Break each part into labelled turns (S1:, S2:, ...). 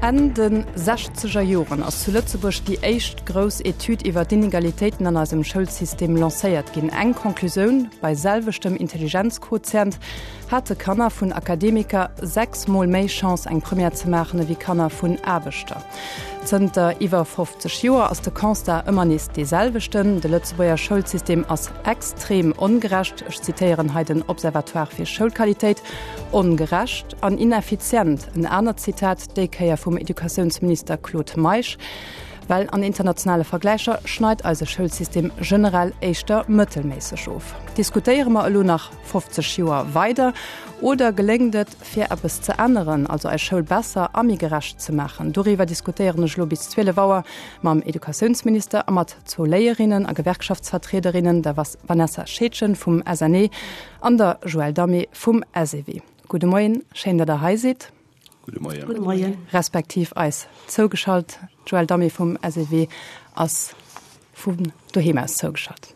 S1: Enn de sechzeger Joren ass zu Lëtzebuerg déi éischt grouss Etüd iwwer d'Inegalitéiten an eisem Schoulsystem lancéiert ginn. Eng Conclusioun, Bei selweschtem Intelligenzquotient hate Kanner vun Akademiker 6 Mol méi Chance eng Première ze maachen ewéi Kanner vun Aarbechter. Zënter iwwer 50 Joer ass de Constat ëmmer nees dee selwechten, De Lëtzebuerger Schoulsystem ass extrem ongerecht, ech zitéieren hei den Observatoire fir Schoulqualitéit, ongerecht an ineffizient. En anert Zitat, déi Kéier vum Educatiounsminister Claude Meisch, Well an internationale Vergläicher schneit eise Schoulsystem generell éischter mëttelméisseg of. Diskutéiere mer elo nach 50 Joer weider oder geléngt et, fir eppes ze änneren, also eis Schoul besser a méi gerecht ze maachen? Doriwwer diskutéieren ech elo bis 12 Auer mam Educatiounsminister a mat zwou Léierinnen a Gewerkschaftsvertriederinnen, der Vanessa Scheedgen vum SNE an der Joëlle Damé vum SEW. Gudde Moien, schéin, datt Der hei sidd.
S2: Gudde Moien. Gudde Moien.
S1: Respektiv eis zougeschalt. D'Joëlle Damé vum SEW ass vun doheem aus zougeschalt.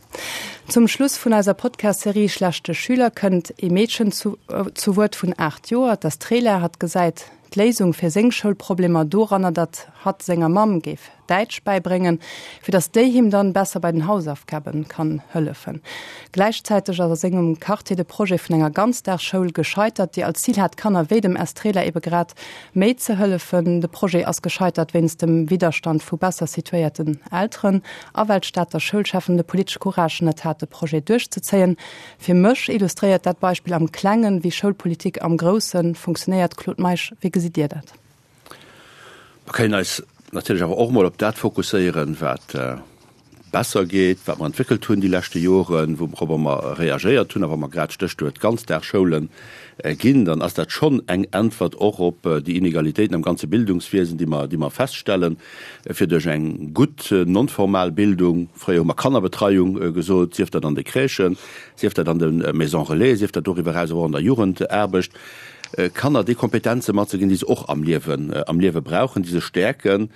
S1: Zum Schluss vun eiser Podcast-Serie Schlechte Schüler kënnt ee Meedchen zu zu Wuert vun 8 Joer, d'Estrela. Hatt gesäit d'Léisung fir seng Schoulproblemer doranner, datt hatt senger Mamm géif Däitsch bäibréngen, fir datt déi him dann besser bei den Hausaufgaben kann hëllefen. Gläichzäiteg ass a sengem Quartier de Projet vun enger Ganzdagsschoul gescheitert, déi als Zil hat, Kanner wéi dem Estrela ebe grad méi ze hëllefen. De Projet ass gescheitert wéinst dem Widderstand vu besser situéierten Elteren a well d'Stater Schoulcheffen de politesche Courage net hat, de Projet duerchzezéien. Fir mech illustréiert dat Beispill am Klengen, wéi Schoulpolitik am Grousse funktionéiert. Claude Meisch, wéi gesitt Dir dat?
S2: Mer kënnen eis natierlech awer och emol op dat fokusséieren, wat besser geet, wat mer entwéckelt hunn déi leschte Joren, wourobber mer reagéiert hunn. A wa mer grad d'Stéchwuert Ganzdagsschoule ginn, dann ass dat schonn eng Äntwert och op déi Inegalitéiten am ganze Bildungswiesen, déi mer, déi mer feststellen, fir duerch eng gutt non-formal Bildung, fréier hu mer Kannerbetreiung gesot, sief dat an de Crèchen, sief dat an de Maisons relais, sief dat doriwwer eraus och an der Jugendaarbecht, Kanner déi Kompetenze matzeginn, déi se och am Liewen, am Liewe brauchen, déi se stäerken.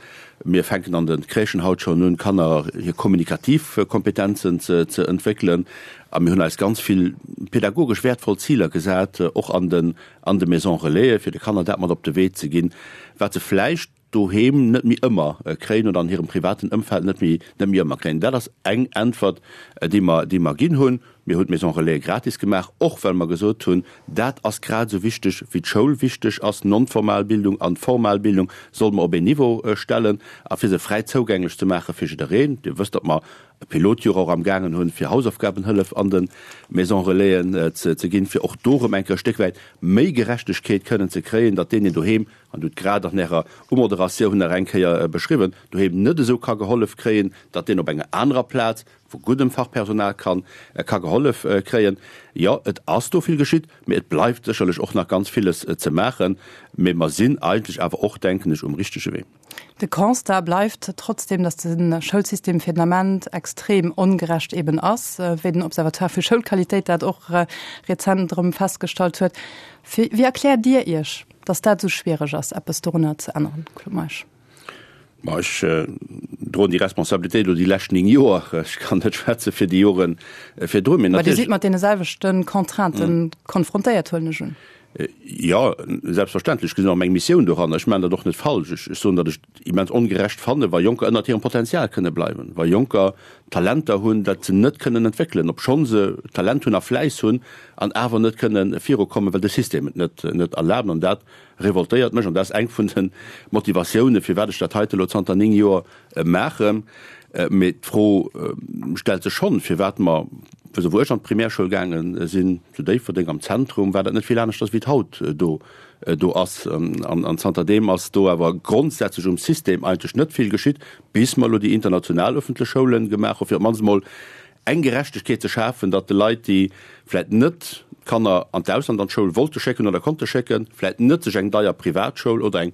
S2: Mir fänken an de Crèchen haut schonn un, Kanner hir kommunikativ Kompetenzen ze, ze entwéckelen. A mir hunn eis ganz vill pädagogesch wäertvoll Ziler gesat, och an den, an de Maisons relaisen, fir de Kanner dat mat op de Wee ze ginn, wat se vläicht doheem net méi ëmmer kréien oder an hirem privaten Ëmfeld net méi net méi ëmmer kréien. Dat ass eng Äntwert, déi mer, déi mer ginn hunn. Mir hunn d'Maison Relais gratis gemaach, och well mer gesot hunn, dat ass grad esou wichteg wéi d'Schoul wichteg ass. Non-formal Bildung an formal Bildung solle mer op een Niveau stellen a fir se fräi zougänglech ze maache fir jiddereen. Dir wësst, datt mer e Pilotjoer och am gaangen hunn, fir Hausaufgabenhëllef an de Maison Relaisen ze ginn, fir och do erëm eng Kéier e Stéck wäit méi Gerechtegkeet kënnen ze kréien, datt deen, deen doheem an hutt grad an Ärer Umoderatioun nach eng Kéier beschriwwen, doheem net esou ka gehollef kréien, datt deen op enger anerer Plaz vu guddem Fachpersonal kann ka gehollef kréien. Jo, et ass do vill geschitt, mee et bleift sécherlech och nach ganz villes ze maachen. Mee mer sinn eigentlech awer och, denken ech, um richtege Wee.
S1: De Constat bleift trotzdem, datt de Schoulsystem fir den Ament extrem ongerecht eben ass, wéi den Observatoire fir Schoulqualitéit dat och rezent erëm festgestallt huet. Wéi erkläert Dir Iech, datt dat esou schwiereg ass, eppes dorunner ze änneren, Claude Meisch?
S2: Ma ech droen déi Responsabilitéit elo déi lescht 9 Joer. Ech kann net schwätze fir déi Jore virdrun.
S1: Mee Dir sidd mat deene selwechte Contrainten konfrontéiert, huelen ech un.
S2: Jo, selbstverständlech. Ech gesinn och meng Missioun doranner. Ech maachen dat och net falsch. Ech soen, datt ech et immens ongerecht fannen, wa Jonker ënnert hirem Potenzial kënne bleiwen, wa Jonker Talenter hunn, dat se net kënnen entwéckelen, obschonn se Talent hunn a Fläiss hunn, an awer net kënne virukommen, well de System et net net erlaabt. An dat revoltéiert mech an dat ass eng vun de Motivatiounen, firwat ech dat heite elo zanter 9 Joer maachen. Mee d'Fro stellt sech schonn, firwat mer, wou ech an d'Primärschoul gaange sinn, zu Déifferdeng am Zentrum, war dat net vill aneschters wéi et haut do do ass. An zanterdeem ass do awer grondsätzlech um System eigentlech net vill geschitt, bis mer elo déi international öffentlech Schoule gemaach hu fir op d'mannst emol eng Gerechtegkeet ze schafen, datt de Leit, déi vläit net d'Kanner an d'Ausland an d'Schoul wollte schécken oder konnte schécken, vläit net sech eng deier Privatschoul oder eng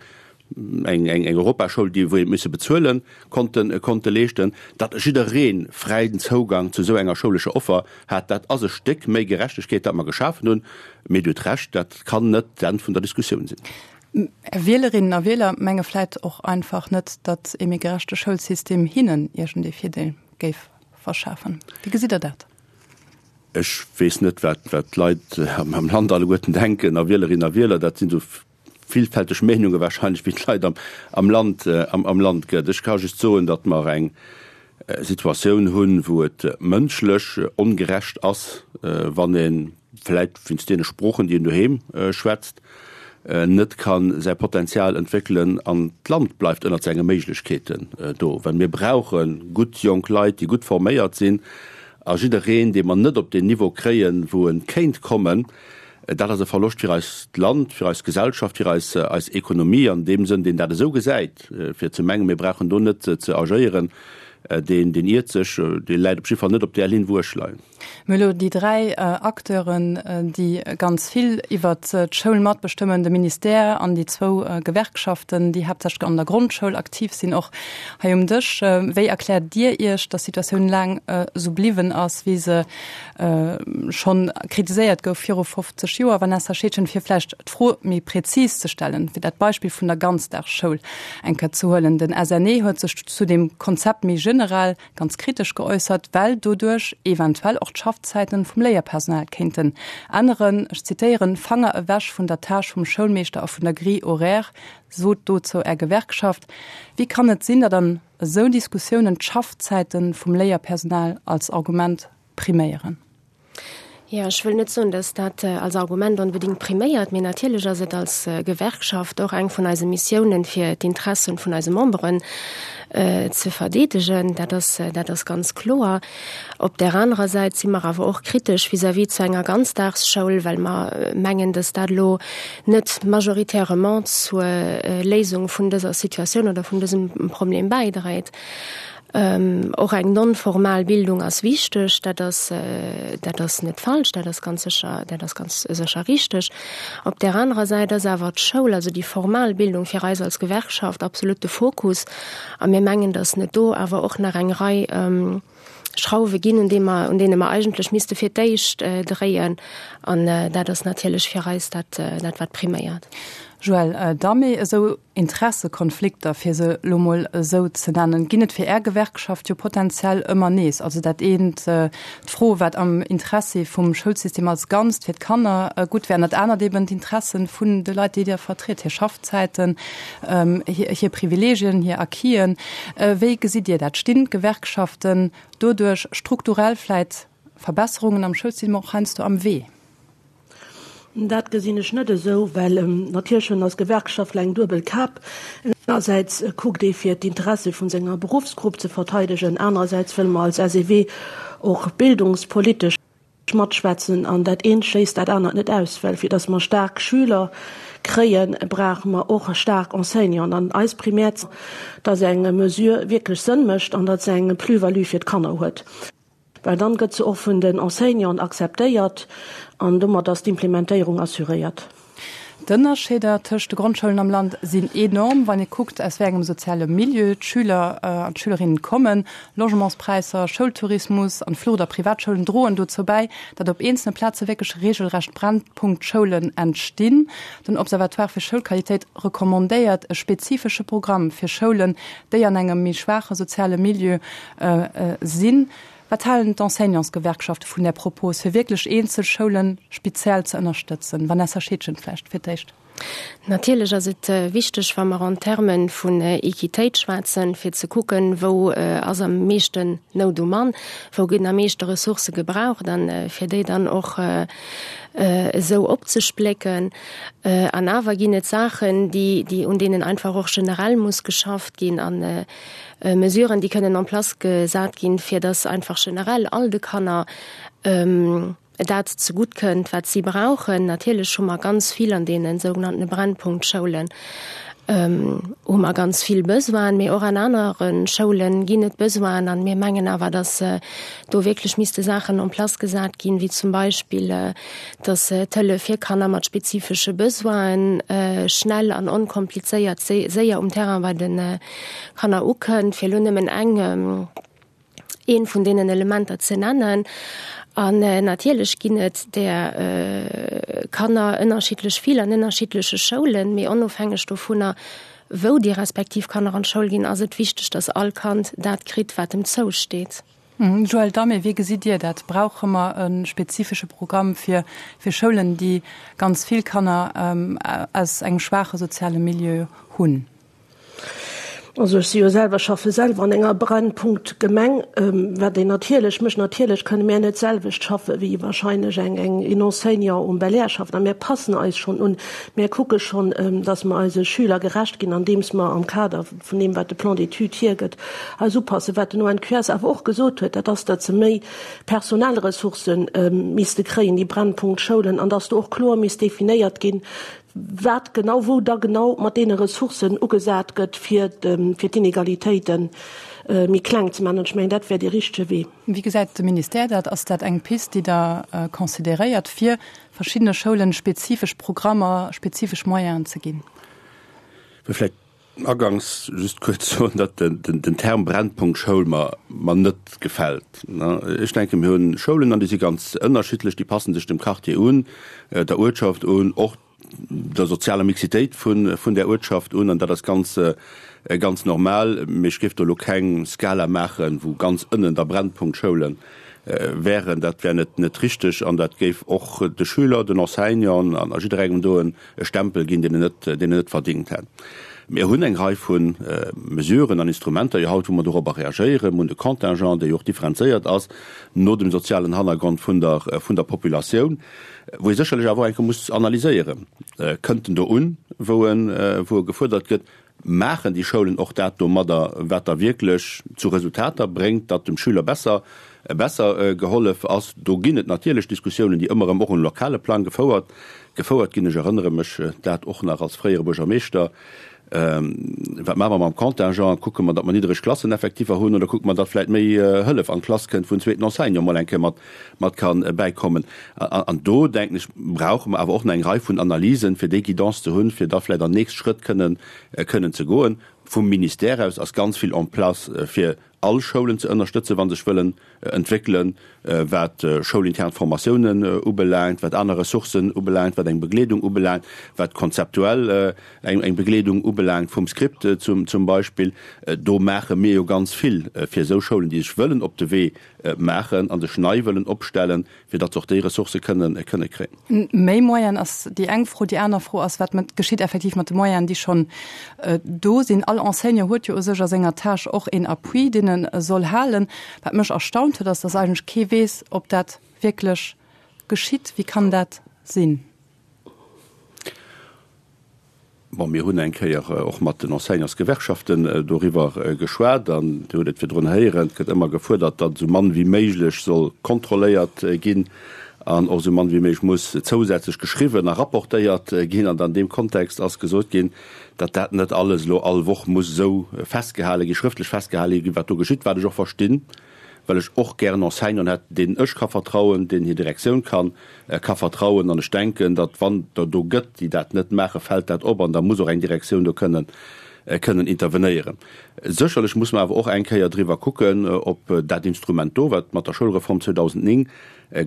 S2: eng eng Europaschoul, déi wou ee misse bezuelen, konnten konnte leeschten, datt jidderee fräien Zougang zu esou enger schoulescher Offer hat. Dat ass e Stéck méi Gerechtegkeet, dat mer geschafen hunn. Mee Dir hutt Recht, dat kann net d'Enn vun der Diskussioun sinn.
S1: Är Wielerinnen a Wieler menge vläit och einfach net, datt ee méi gerechte Schoulsystem hinnen iergendee Virdeel géif verschafen. Wéi gesitt Der dat?
S2: Ech weess net, wat wat d'Leit am Land alleguerten denken a Wielerinnen a Wieler. Dat sinn esou. villfälteg Meenunge wahrscheinlech wéi d'Leit am, am Land, am, am Land gëtt. Ech ka just soen, datt mer eng Situatioun hunn, wou et mënschlech ongerecht ass, wann ee vläit wéinst deene Sproochen, déi een doheem schwätzt, net ka säi Potenzial entwéckelen an d'Land bleift ënnert senge Méiglechkeeten do. Well mir brauche gutt jonk Leit, déi gutt forméiert sinn a jiddereen, dee mer net op deen Niveau kréien, wou e kéint kommen, dat ass e Verloscht fir eist Land, fir eis Gesellschaft, fir eis eis Ekonomie. An deem Sënn, deen dat esou gesäit, fir ze mengen, mir brauchen do net ze agéieren, deen deen iert sech, dee läit op jidde Fall net op där Linn, wou ech leien.
S1: Mir hu elo déi 3 Acteuren, déi ganz vill iwwert d'Schoul matbestëmmen, de Ministère an déi zwou Gewerkschaften, déi haaptsächlech an der Grondschoul aktiv sinn, och hei um Dësch. Wéi erkläert Dir Iech, datt d'Situatioun laang esou bliwwen ass, wéi se schonn kritiséiert gouf viru 50 Joer? Vanessa Scheedgen, fir vläicht d'Fro méi prezis ze stellen, fir dat Beispill vun der Ganzdagsschoul eng Kéier ze huelen, Den SNE huet sech zu deem Konzept méi generell ganz kritesch geäussert, well doduerch eventuell och d'Schaffzäiten vum Léierpersonal kéinten änneren. Ech zitéieren, Fanger ewech vun der Tâche vum Schoulmeeschter a vun der Grille horaire, sot dozou Är Gewerkschaft. Wéi kann et sinn, datt an esou Diskussiounen d'Schaffzäiten vum Léierpersonal als Argument priméieren?
S3: Jo, ech wëll net soen, datt dat als Argument onbedéngt priméiert, mee natierlech ass et als Gewerkschaft och eng vun eise Missiounen, fir d'Interessen vun eise Memberen ze verdeedegen. Dat ass, dat ass ganz kloer. Op där anerer Säit si mer awer och kritesch vis-à-vis zu enger Ganzdagsschoul, well mer mengen, datt dat elo net majoritairement zur Léisung vun dëser Situatioun oder vun dësem Problem bäidréit. Och eng non-formal Bildung ass wichteg, dat ass, dat ass net falsch, dat ass ganz sécher, dat ass ganz sécher richteg. Op där anerer Säit ass awer d'Schoul, also déi formal Bildung fir eis als Gewerkschaft absolut de Fokus. A mir mengen, datt net do awer och nach eng Rei Schrauwe ginn, un deem mer, un deene mer eigentlech misste fir d'éischt dréien. An dat ass natierlech fir eis dat, dat wat priméiert.
S1: Joël Damé, Esou Interessekonflikter, fir se elo mol esou ze nennen, ginn et fir Är Gewerkschaft jo potenziell ëmmer nees. Also dat eent, d'Fro, wat am Interessi vum Schoulsystem als Ganzt fir d'Kanner gutt wär, an dat anert eben d'Interessen vun de Leit, déi Dir vertritt, hir Schaffzäiten, hir Privilegien, hir Acquisen. Wéi gesitt Dir dat? Stinn d'Gewerkschaften doduerch strukturell vläit Verbesserungen am Schoulsystem och heiansdo am Wee?
S4: Dat gesinn ech net esou, well natierlech hunn als Gewerkschaftler eng duebel Kap. Engersäits kuckt ee fir d'Interesse vun senger Beruffsgrupp ze verteidegen, anerersäits wëlle mer als SEW och bildungspolitesch matschwätzen an dat eent schléisst dat anert net aus, well fir datt mer staark Schüler kréien, brauche mer och staark Enseignanten an eis primär, datt eng Mesure wierklech Sënn mécht an datt se eng Plus-value fir d'Kanner huet. Well dann gëtt se och vun den Enseignanten akzeptéiert an domat ass d'Implementéierung assuréiert.
S1: D'Ënnerscheeder tëscht de Grondschoulen am Land sinn enorm, wann ee kuckt, aus wéi engem soziale Milieu d'Schüler an d'Schülerinnen kommen. Logementspräisser, Schoultourismus an d'Flucht a Privatschoulen droen dozou bäi, datt op eenzelne Plaze wierklech reegelrecht Brennpunktschoulen entstinn. Den Observatoire fir Schoulqualitéit recommandéiert e spezifesche Programm fir Schoulen, déi an engem méi schwaache soziale Milieu Sinn. Wat halen d'Enseignantsgewerkschafte vun där Propos, fir wierklech eenzel Schoule speziell ze ënnerstëtzen? Vanessa Scheedgen vläicht fir d'éischt.
S3: Natierlech ass et wichteg, wa mer en Termen vun Equitéit schwätzen, fir ze kucken, wou ass am meeschten Nout um Mann, wou ginn am meeschte Ressourcë gebraucht an fir déi dann och esou opzesplécken. An awer ginn et Saachen, déi, un deenen einfach och generell muss geschafft ginn. An Mesuren, déi kënnen en place gesat ginn, fir dass einfach generell all de Kanner dat zegutt kënnt, wat si brauchen. Natierlech hu mer ganz vill an deene sougenannte Brennpunktschoulen hu mer ganz vill Besoinen, mee och an anere Schoule ginn et Besoinen. A mir mengen awer, dass do wierklech misste Saachen en place gesat ginn, wéi zum Beispill, dass d'Hëllef fir Kanner mat spezifesche Besoinen schnell an onkomplizéiert séier um Terrain bei de Kanner ukënnt, fir elo nëmmen eng, eent vun deenen Elementer ze nennen. An natierlech ginn et där Kanner ënnerschiddlech vill an ënnerschiddleche Schoulen, mee onofhängeg dovunner, wou déi respektiv Kanner an d'Schoul ginn, ass et wichteg, dass all Kand dat kritt, wat em zousteet.
S1: Joël Damé, Wéi gesitt Dir dat? Brauche mer e spezifesche Programm fir fir Schoulen, déi ganz vill Kanner aus engem schwaache soziale Milieu hunn?
S4: Also ech si jo selwer, schaffe selwer an enger Brennpunkt-Gemeng, wat een natierlech mécht. Natierlech kënne mär net d'selwecht schaffe wéi wahrscheinlech eng eng een Enseignant um Belair schafft. A mär passen eis schonn un. Mär kucke schonn, datt mer eise Schüler gerecht ginn, andeems mer am Kader vun deem wat de Plan d'études hiergëtt, eis upassen. Wat den ONQS awer och gesot huet, dat ass, datt se méi personell Ressourcë misste kréien, déi Brennpunkt-Schoulen, an datt do och kloer misst definéiert ginn, wat genau, wou da genau mat deene Ressourcen ugesat gëtt, fir d'Inegalitéite méi kleng ze maachen. An ech mengen, dat wär dee richtege Wee.
S1: Wéi gesäit de Ministère dat? Ass dat eng Pist, déi Der consideréiert, fir verschiddene Schoulen spezifesch Programmer, spezifesch Moyenen ze ginn?
S2: Vläicht agangs just kuerz soen, datt den Term Brennpunkt-Schoul mer mer net gefält. Ech denken, mir hunn Schoulen an déi si ganz ënnerschiddlech, déi passen sech dem Quartier un, der Uertschaft un, och der sozialer Mixitéit vun vun där Uertschaft un an dat ass ganz ganz normal. Mee ech géif do elo keng Skala maachen, wou ganz ënnen da Brennpunkt-Schoule wären. Dat wär net net richteg an dat géif och de Schüler, den Enseignanten an a jidderengem do en e Stempel ginn, deen en net, deen en net verdingt hätt. Mir hunn eng Rei vu Mesuren an Instrumenter jo haut, wou mer dorobber reagéieren. Mir hunn de Contingent, dee jo och differenzéiert ass no dem sozialen Hannergrond vun der, vun der Populatioun, wou ee sécherlech awer och eng Kéier muss analyséieren, Kënnt en do un, wou en, wou e gefuerdert gëtt? Maachen déi Schoulen och dat domadder, wat da wierklech zu Resultater bréngt, datt dem Schüler besser besser gehollef ass? Do ginn et natierlech Diskussiounen, déi ëmmer erëm och um lokale Plang gefouert gefouert ginn. Ech erënnere mech dat och nach als fréiere Buergermeeschter. Wat maache mer mam Contingent? Kucke mer, datt mer niddereg Klasseneffektiver hunn oder kucke mer, datt vläicht méi Hëllef an d'Klass kënnt, wou en zweeten Enseignant mol eng Kéier mat mat ka bäikommen. An do, denken ech, brauche mer awer och nach eng Rei vun Analysen, fir déi Guidance ze hunn, fir da vläicht an nächst Schrëtt kënnen, kënnen ze goen. Vum Ministère aus ass ganz vill en place, fir all Schoulen ze ënnerstëtzen, wa sech wëllen entwéckelen, wat schoulintern Formatiounen ubelaangt, wat aner Ressourcen ubelaangt, wat eng Begleedung ubelaangt, wat konzeptuell eng Begleedung ubelaangt vum Script zum Beispill. Do maache mir jo ganz vill fir esou Schoulen, déi sech wëllen op de Wee maachen a sech nei wëllen opstellen, fir datt se och déi Ressourcë kënnen kënne kréien.
S1: Méi Moyen ass déi eng Fro. Déi aner Fro ass, Wat mat geschitt effektiv mat de Moyenen, déi schonn do sinn? All Enseignant huet jo u sech a senger Tâche och een Appui, deen e soll halen. Wat mech erstaunt huet, ass, datt eigentlech kee weess, ob dat wierklech geschitt. Wéi kann dat sinn?
S2: Bon, mir hunn eng Kéier och mat den Enseignantsgewerkschaften doriwwer geschwat an Dir hutt et virdrun héieren, et gëtt ëmmer gefuerdert, datt esou mann wéi méiglech soll kontrolléiert ginn an och esou mann wéi méiglech muss zousätzlech geschriwwen a rapportéiert ginn. An an deem Kontext ass gesot ginn, datt dat net alles elo all Woch muss esou festgehale ginn, schrëftlech festgehale ginn, wat do geschitt, wat ech och verstinn. well ech och gären Enseignanten hätt, deenen ech ka vertrauen, deenen hir Direktioun kann ka vertrauen. An ech denken, datt wann der do gëtt, déi dat net maachen, fält dat op an da muss och eng Direktioun do kënnen kënnen intervenéieren. Sécherlech muss mer awer och eng Kéier driwwer kucken, ob dat Instrument do, wat mat der Schoulreform 2009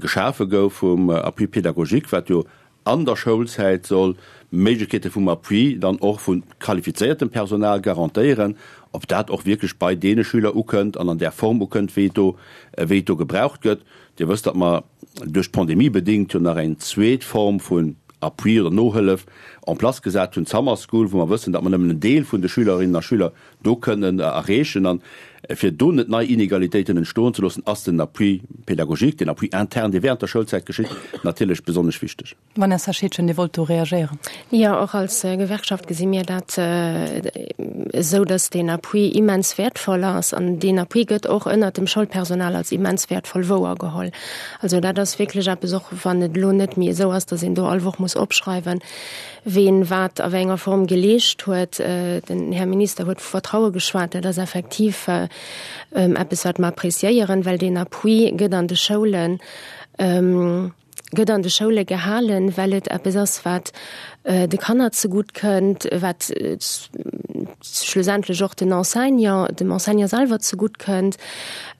S2: geschafe gouf vum Appui pédagogique, wat jo an der Schoulzäit soll Méiglechkeete vum Appui dann och vu qualifizéiertem Personal garantéieren, ob dat och wierklech bei deene Schüler ukënnt an an där Form ukënnt, wéi et do, wéi et do gebraucht gëtt. Dir wësst, datt mer duerch d'Pandemie bedéngt jo nach eng zweet Form vun Appui oder Nohëllef en place gesat hunn, d'Summer School, wou mer wëssen, datt mer nëmmen en Deel vun de Schülerinnen a Schüler do kënnen erreechen. An fir do net nei Inegalitéiten entstoen ze loossen, ass den Appui pédagogique, den Appui interne, dee während der Schoulzäit geschitt, natierlech besonnesch wichteg.
S1: Vanessa Scheedgen, Dir wollt do reagéieren.
S3: Jo, och als Gewerkschaft gesi mir dat esou, dass deen Appui immens wäertvoll ass. An deen Appui gëtt och ënnert dem Schoulpersonal als immens wäertvoll wouergeholl. Also dat ass wierklech eppes, och wann et elo net méi esou ass, dass een do all Woch muss opschreiwen, ween wat a wéi enger Form geleescht huet. Den Här Minister huet vu Vertraue geschwat. Dat ass effektiv eppes, wat mer appréciéieren, well deen Appui gëtt an de Schoulen, gëtt an de Schoule gehalen, well et eppes ass, wat de Kanner zegutt kënnt, wat schlussendlech och den Enseignant, dem Enseignant selwer zegutt kënnt,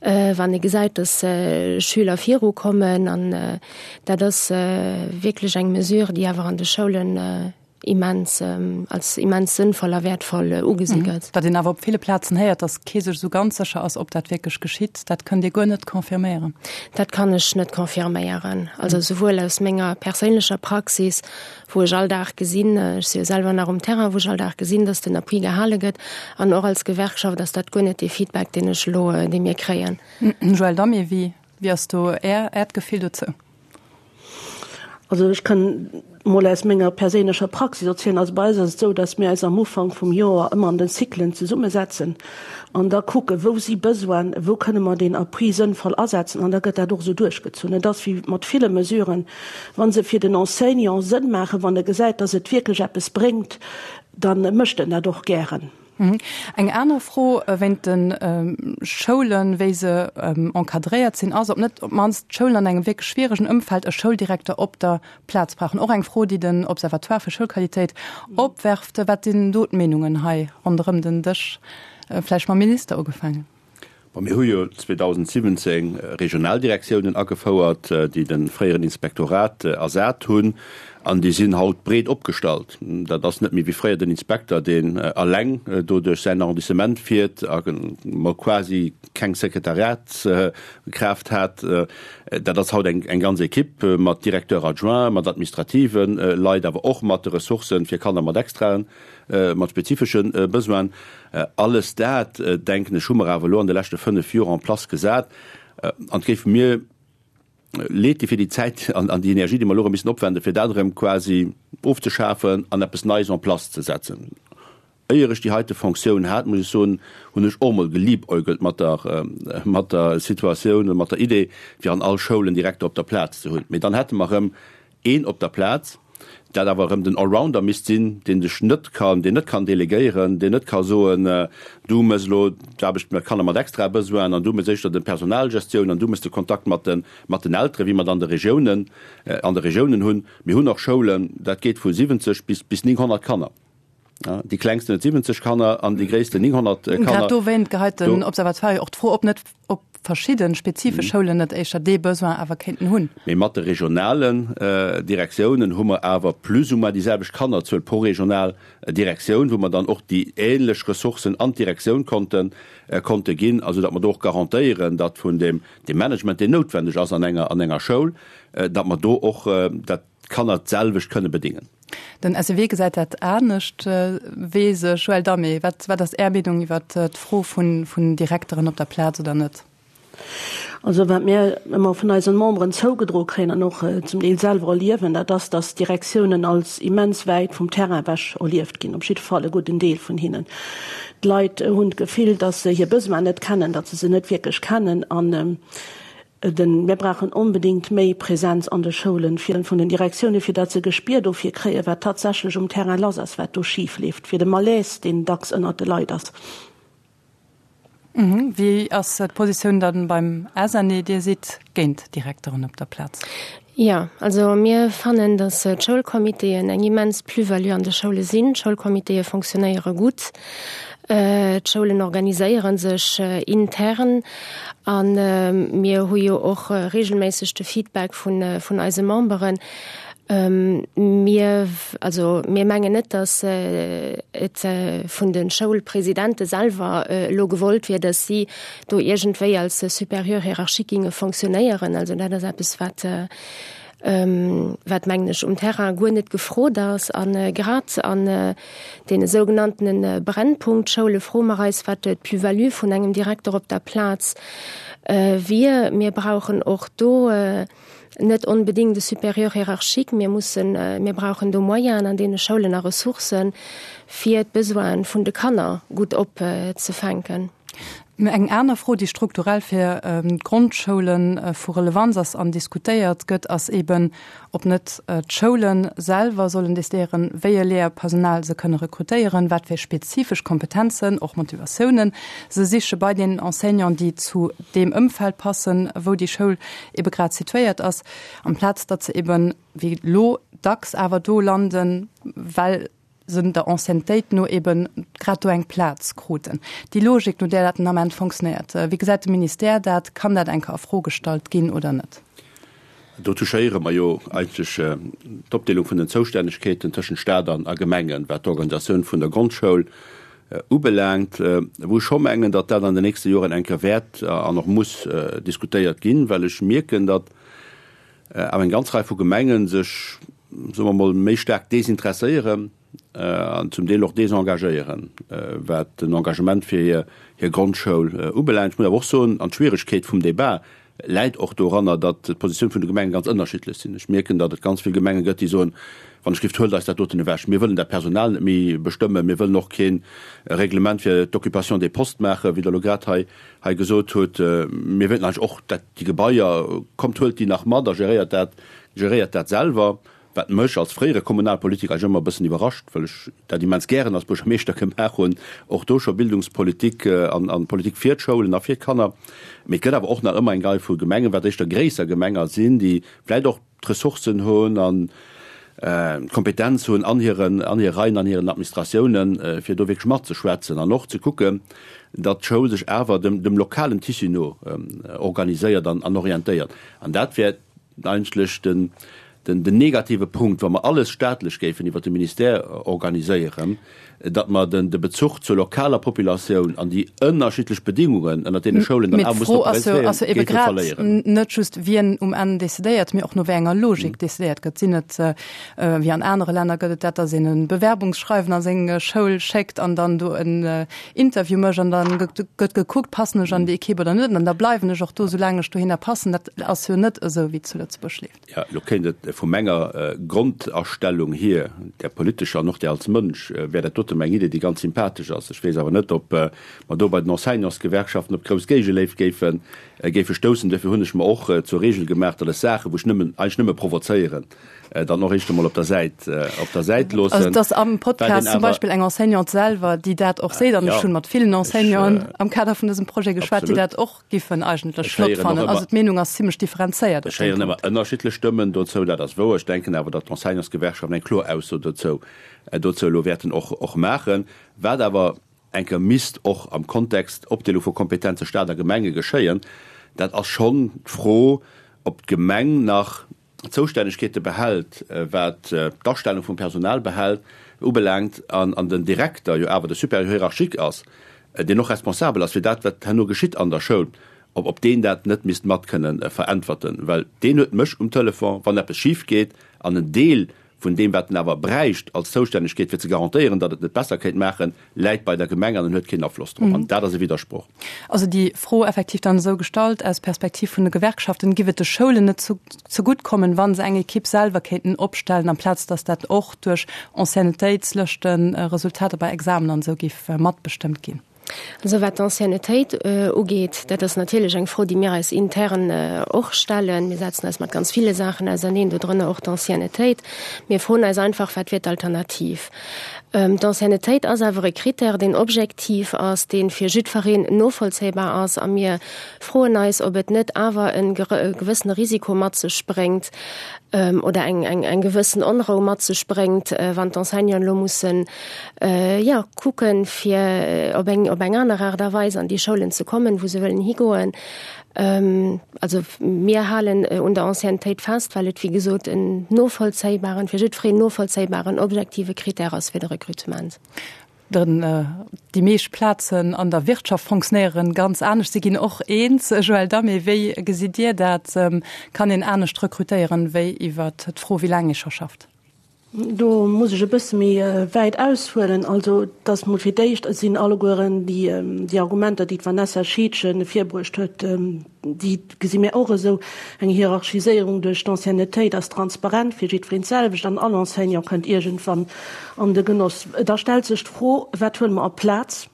S3: wann e gesäit, dass Schüler virukommen. An dat ass wierklech eng Mesure, déi awer an de Schoulen. Immens, als immens sënnvoll a wäertvoll ugesi gëtt.
S1: Datt een awer op ville Plazen héiert, datt kee sech esou ganz sécher ass, ob dat wierklech geschitt, dat kënnt Dir guer net confirméieren?
S3: Dat kann ech net confirméieren. Also souwuel aus menger perséinlecher Praxis, wou ech all Dag gesinn, ech si jo selwer nach um Terrain, wou ech all Dag gesinn, datt den Appui gehale gëtt, an och als Gewerkschaft ass dat guer net dee Feedback, deen ech elo, dee mir kréien.
S1: Joëlle Damé, wéi ass do Äert Gefill dozou?
S4: Also ech kann mol aus menger perséinlecher Praxis erzielen. Also bei eis ass et esou, datt mir eis am Ufank vum Joer ëmmer an den Cyclen zesummesetzen an da kucken, wou si Besoinen, wou kënne mer deen Appui sënnvoll asetzen an da gëtt dat och esou duerchgezunn. Et ass wéi mat ville Mesuren, wa se fir den Enseignant Sënn maachen, wann e gesäit, datt et wierklech eppes bréngt, da mécht en dat och gären.
S1: Eng aner Fro wéint de Schoulen, wéi se encadréiert sinn, ass, ob net op d'mannst d'Schoulen an engem wierklech schwieregen Ëmfeld e Schouldirekter op der Plaz brauchen. Och eng Fro, déi den Observatoire fir Schoulqualitéit opwerft. Wat sinn do d'Meenungen hei ronderëm den Dësch? Vläicht mam Minister ugefaangen.
S2: Bon, mir hu jo 2017 Regionaldirektiounen agefouert, déi de fréieren Inspektorat ersat hunn, an déi sinn haut breet opgestallt. Dat ass net méi wéi fréier den Inspekter, deen eleng do duerch säin Arrondissement fiert a mol quasi keng Sekretariatskraaft hat. Dat ass haut eng ganz Equipe mat Directeur adjoint, mat administrative Leit, awer och mat de Ressourcen fir Kanner mat extraen mat spezifesche Besoinen. Alles dat, denken ech, hu mer awer elo an de leschte 5 Joer en place gesat. An et géif mir leed di fir déi Zäit an déi Energie, déi mer elo erëm missen opwenden, fir dat erëm quasi ofzeschafen an eppes Neies en place ze setzen. Éier ech déi heite Fonctioun hat, muss ech soen, hunn ech och emol geliebäugelt mat der, mat der Situatioun oder mat der Idee, fir an all Schoul en Direkter op der Plaz ze hunn. Mee dann hätte mer erëm een op der Plaz, dat awer erëm den Allrounder misst sinn, deen sech net kann, deen net kann delegéieren, deen net ka soen, du méchs elo d'Aarbecht mat Kanner mat extrae Besoinen an du méchs éischter de Personalgestioun an du méchs de Kontakt mat de, mat den Elteren, wéi mer et an de Regiounen, an de Regiounen hunn. Mir hunn och Schoulen, dat geet vu 70 bis, bis 900 Kanner. Déi klengsten huet 70 Kanner an déi gréissten 900
S1: Kanner. Grad dowéint geheit den Observatoire jo och d'Fro op, net ob verschidde spezifesch Schoulen net éischter dee Besoin awer kéinten hunn.
S2: Mee mat de regionalen Direktiounen hu mer awer plus ou moins déi selwecht Kannerzuel pro regional Direktioun, wou mer dann och déi ähnlech Ressourcen an d'Direktioun konnte konnte ginn, a soudatt mer do och garantéieren, datt vun deem Management, deen noutwendeg ass an enger an enger Schoul, datt mer do och dat d'Kanner d'selwecht kënne bedingen.
S1: Den SEW gesäit dat anescht. Weess ech. Joël Damé, wat, wat ass Är Meenung iwwert d'Fro vun, vun Direkteren op der Plaz oder net?
S4: Also wat mir ëmmer vun eisen Memberen zougedroe kréien an och zum Deel selwer erliewen, dat ass, datt d'Direktiounen als immens wäit vum Terrain ewech erlieft ginn, op jidde Fall e gudden Deel vun hinnen. D'Leit hunn d'Gefill, datt se hir Besoinen net kennen, datt se se net wierklech kennen an Den, Mir brauchen onbedéngt méi Präsenz an de Schoulen fir vun den Direktiounen, fir datt se e Gespier dofir kréien, wat tatsächlech um Terrain lass ass, wat do schif leeft, fir de Malaise, deen dacks ënnert de Leit ass.
S1: Wéi ass d'Positioun dann beim SNE? Dir sidd géint Direkteren op der Plaz.
S3: Jo, also mir fannen, datt d'Schoulcomitéen eng immens Plus-value an de Schoule sinn. D'Schoulcomitéë fonctionnéiere gutt. D'Schoulen organiséiere sech intern a mir hu jo och reegelméisseg de Feedback vun eise Memberen. Mir, also mir mengen net, datt et vun de Schoulpresidente selwer elo gewollt wier, datt si do iergendwéi als Supérieur hiérarchique ginge fonctionnéieren. Also dat ass eppes, wat, wat mengen ech, um Terrain guer net gefrot ass. A grad an deene sougenanntene Brennpunktschoule froe mer eis, wat d'Plus-value vun engem Direkter op der Plaz wier. Mir brauchen och do net onbedéngt e Supérieur hiérarchique. Mir mussen, mir brauchen do Moyenen an deene Schoulen a Ressourcen, fir d'Besoine vun de Kanner gutt opzefänken.
S1: Eng aner Fro, déi strukturell fir d'Grondschoule vu Relevanz ass an diskutéiert gëtt, ass eben, ob net d'Schoule selwer sollen decidéieren, wéi e Léierpersonal se kënne rekrutéieren, wat fir spezifesch Kompetenzen, och Motivatiounen se siche bei den Enseignanten, déi zu deem Ëmfeld passen, wou déi Schoul ebe grad situéiert ass, amplaz datt se eben, wéi elo dacks, awer do landen, well se der Anciennetéit no eben grad do eng Plaz kruten. Déi Logik, no där dat den Ament fonctionnéiert, wéi gesäit de Ministère dat? Kann dat eng Kéier a Fro gestallt ginn oder net?
S2: Do touchéiere mer jo eigentlech d'Opdeelung vun den Zoustännegkeeten tëschent Stat an a Gemengen, wat d'Organisatioun vun der Grondschoul ubelaangt, wou ech scho mengen, datt dat an den nächste Joren eng Kéier wäert an och muss diskutéiert ginn, well ech mierken, datt awer eng ganz Rei vu Gemenge sech, soe mer emol, méi staark desinteresséieren an zum Deel och desengagéieren, wat den Engagement fir hir Grondschoul ubelaangt. Ech muss awer och soen, an d'Schwieregkeet vum Débat läit och doranner, datt d'Positioun vun de Gemengen ganz ënnerschiddlech sinn. Ech mierken, datt et ganz vill Gemenge gëtt, déi soen, Wann ech gift, huelt eis dat doten ewech, mir wëllen dat Personal net méi bestëmmen, mir wëllen och kee Reglement fir d'Occupation des postes maachen, wéi Der elo grad hei hei gesot hutt. Mir wéilten eigentlech och dat déi Gebaier, kommt huelt déi nach mat a geréiert dat, geréiert dat selwer. Wat mech als fréiere Kommunalpolitiker eigentlech ëmmer e bëssen iwwerrascht, well ech dat immens gären als Buergermeeschter gemaach hunn, och do scho Bildungspolitik an Politik fir d'Schoulen a fir d'Kanner. Mee et gëtt awer och nach ëmmer eng Rei vu Gemengen, wat éischter gréisser Gemenger sinn, déi vläicht och d'Ressourcen hunn an d'Kompetenz hunn an hiren, an hire Reien, an hiren Administratiounen, fir do wierklech matzeschwätzen an och ze kucken, datt d'Schoul sech awer dem, dem lokalen Tissu no organiséiert an orientéiert. An dat wär eigentlech den, den negative Punkt, wa mer alles staatlech géifen iwwert de Ministère organiséieren, datt mer den de Bezuch zur lokaler Populatioun an déi ënnerschiddlech Bedingungen, ënnert deene Schoulen dann
S1: awer mussen operéieren, géife verléieren. Net just wien um Enn decidéiert, mee och no wéi enger Logik decidéiert gëtt. Sinn et, wéi an anere Länner gëtt et dat, datt een e Bewerbungsschreiwen a seng Schoul schéckt an dann do en Interview mécht an dann gëtt gekuckt, passen ech an déi Equipe oder net an da bleiwen ech och do, soulaang ech dohinner passen. Dat ass jo net esou, wéi et zu Lëtzebuerg leeft.
S2: Jo, elo kéint et vu menger Grondastellung hier, där politescher an och där als Mënsch, wär dat dote meng Idee, déi ganz sympathesch ass. Ech weess awer net, ob mer do bei den Enseignantsgewerkschaften op grouss Géigeléift géife géife stoussen. Duerfir hunn ech mer och zur Regel gemaach, datt ech Saachen, wou ech nëmmen, eigentlech nëmme provozéieren, dann och éischt emol op der Säit, op der Säit loossen.
S1: Also et ass am Podcast zum Beispill eng Enseignante selwer, déi dat och seet, an ech hunn mat villen Enseignanten am Kader vun dësem Projet geschwat, déi dat och Giffen eigentlech flott fannen. Also d'Meenung ass zimmlech differenzéiert
S2: op deem Punkt. Ech héieren ëmmer ënnerschiddlech Stëmmen dozou, dat ass wouer. Ech denken awer, datt d'Enseignantsgewerkschaften eng kloer Ausso dozou dozou elo wäerten och och maachen. Wat awer eng Kéier misst och am Kontext Opdeelung vu Kompetenze Stat a Gemenge geschéien, dat ass schonn d'Fro, ob d'Gemeng nach Zoustännegkeete behält, wat d'Astellung vum Personal behält, ubelaangt, an den Direkter jo awer de Supérieur hiérarchique ass, deen och responsabel ass fir dat, wat herno geschitt an der Schoul, ob ob deen dat net misst mat kënnen veräntwerten, well deen huet mech um Telefon, wann eppes schif geet, an en Deel vun deem, wat en awer bräicht als Zoustännegkeet, fir ze garantéieren, datt et net besser kéint maachen, läit bei der Gemeng an en huet keen Afloss drop. An dat ass e Widdersproch.
S1: Also déi Fro effektiv dann esou gestallt, aus Perspektiv vun de Gewerkschaften, Giff et de Schoulen net zegutt kommen, wa se eng Ekipp selwer kéinten opstellen, amplaz datt dat och duerch Anciennetéitslëschten, Resultater bei Examen an esou giff matbestëmmt ginn?
S3: Also wat d'Anciennetéit ugeet, dat ass natierlech eng Fro, déi mir eis intern och stellen. Mir setzen eis mat ganz ville Saachen auserneen, dodrënner och d'Anciennetéit. Mir froen eis einfach, Wat wier d'Alternativ? D'Anciennetéit ass awer e Critère, deen objektiv ass, dee fir jiddfereen novollzéibar ass. A mir froen eis, ob et net awer e gewëssene Risiko mat sech bréngt oder eng gewëssen Onrou mat sech bréngt, wann d'Enseignanten elo mussen, jo, kucken, fir op eng, op eng aner Aart a Weis an déi Schoulen ze kommen, wou se wëllen higoen. Also mir halen un der Anciennetéit fest, well et, wéi gesot, en novollzéibaren, fir jiddwereen novollzéibaren, objektive Critère ass fir de Recrutement.
S1: Den, déi meescht Plazen an der Wirtschaft fonctionnéieren ganz anescht. Si ginn och eens. Joël Damé, wéi gesitt Dir dat? Kann een anescht rekrutéieren, wéi iwwert d'Fro, wéi laang ee scho schafft?
S4: Do muss ech e bësse méi wäit aushuelen. Also, et ass mol fir d'éischt sinn allegueren déi Argumenter, déi d'Vanessa Scheedgen virbruecht huet, déi gesi mir och esou. Eng Hierarchiséierung duerch d'Anciennetéit ass transparent fir jiddwereen d'selwecht an all Enseignant kënnt iergendwann an de Genoss. Da stellt sech d'Fro, Wat huele mer a Plaz?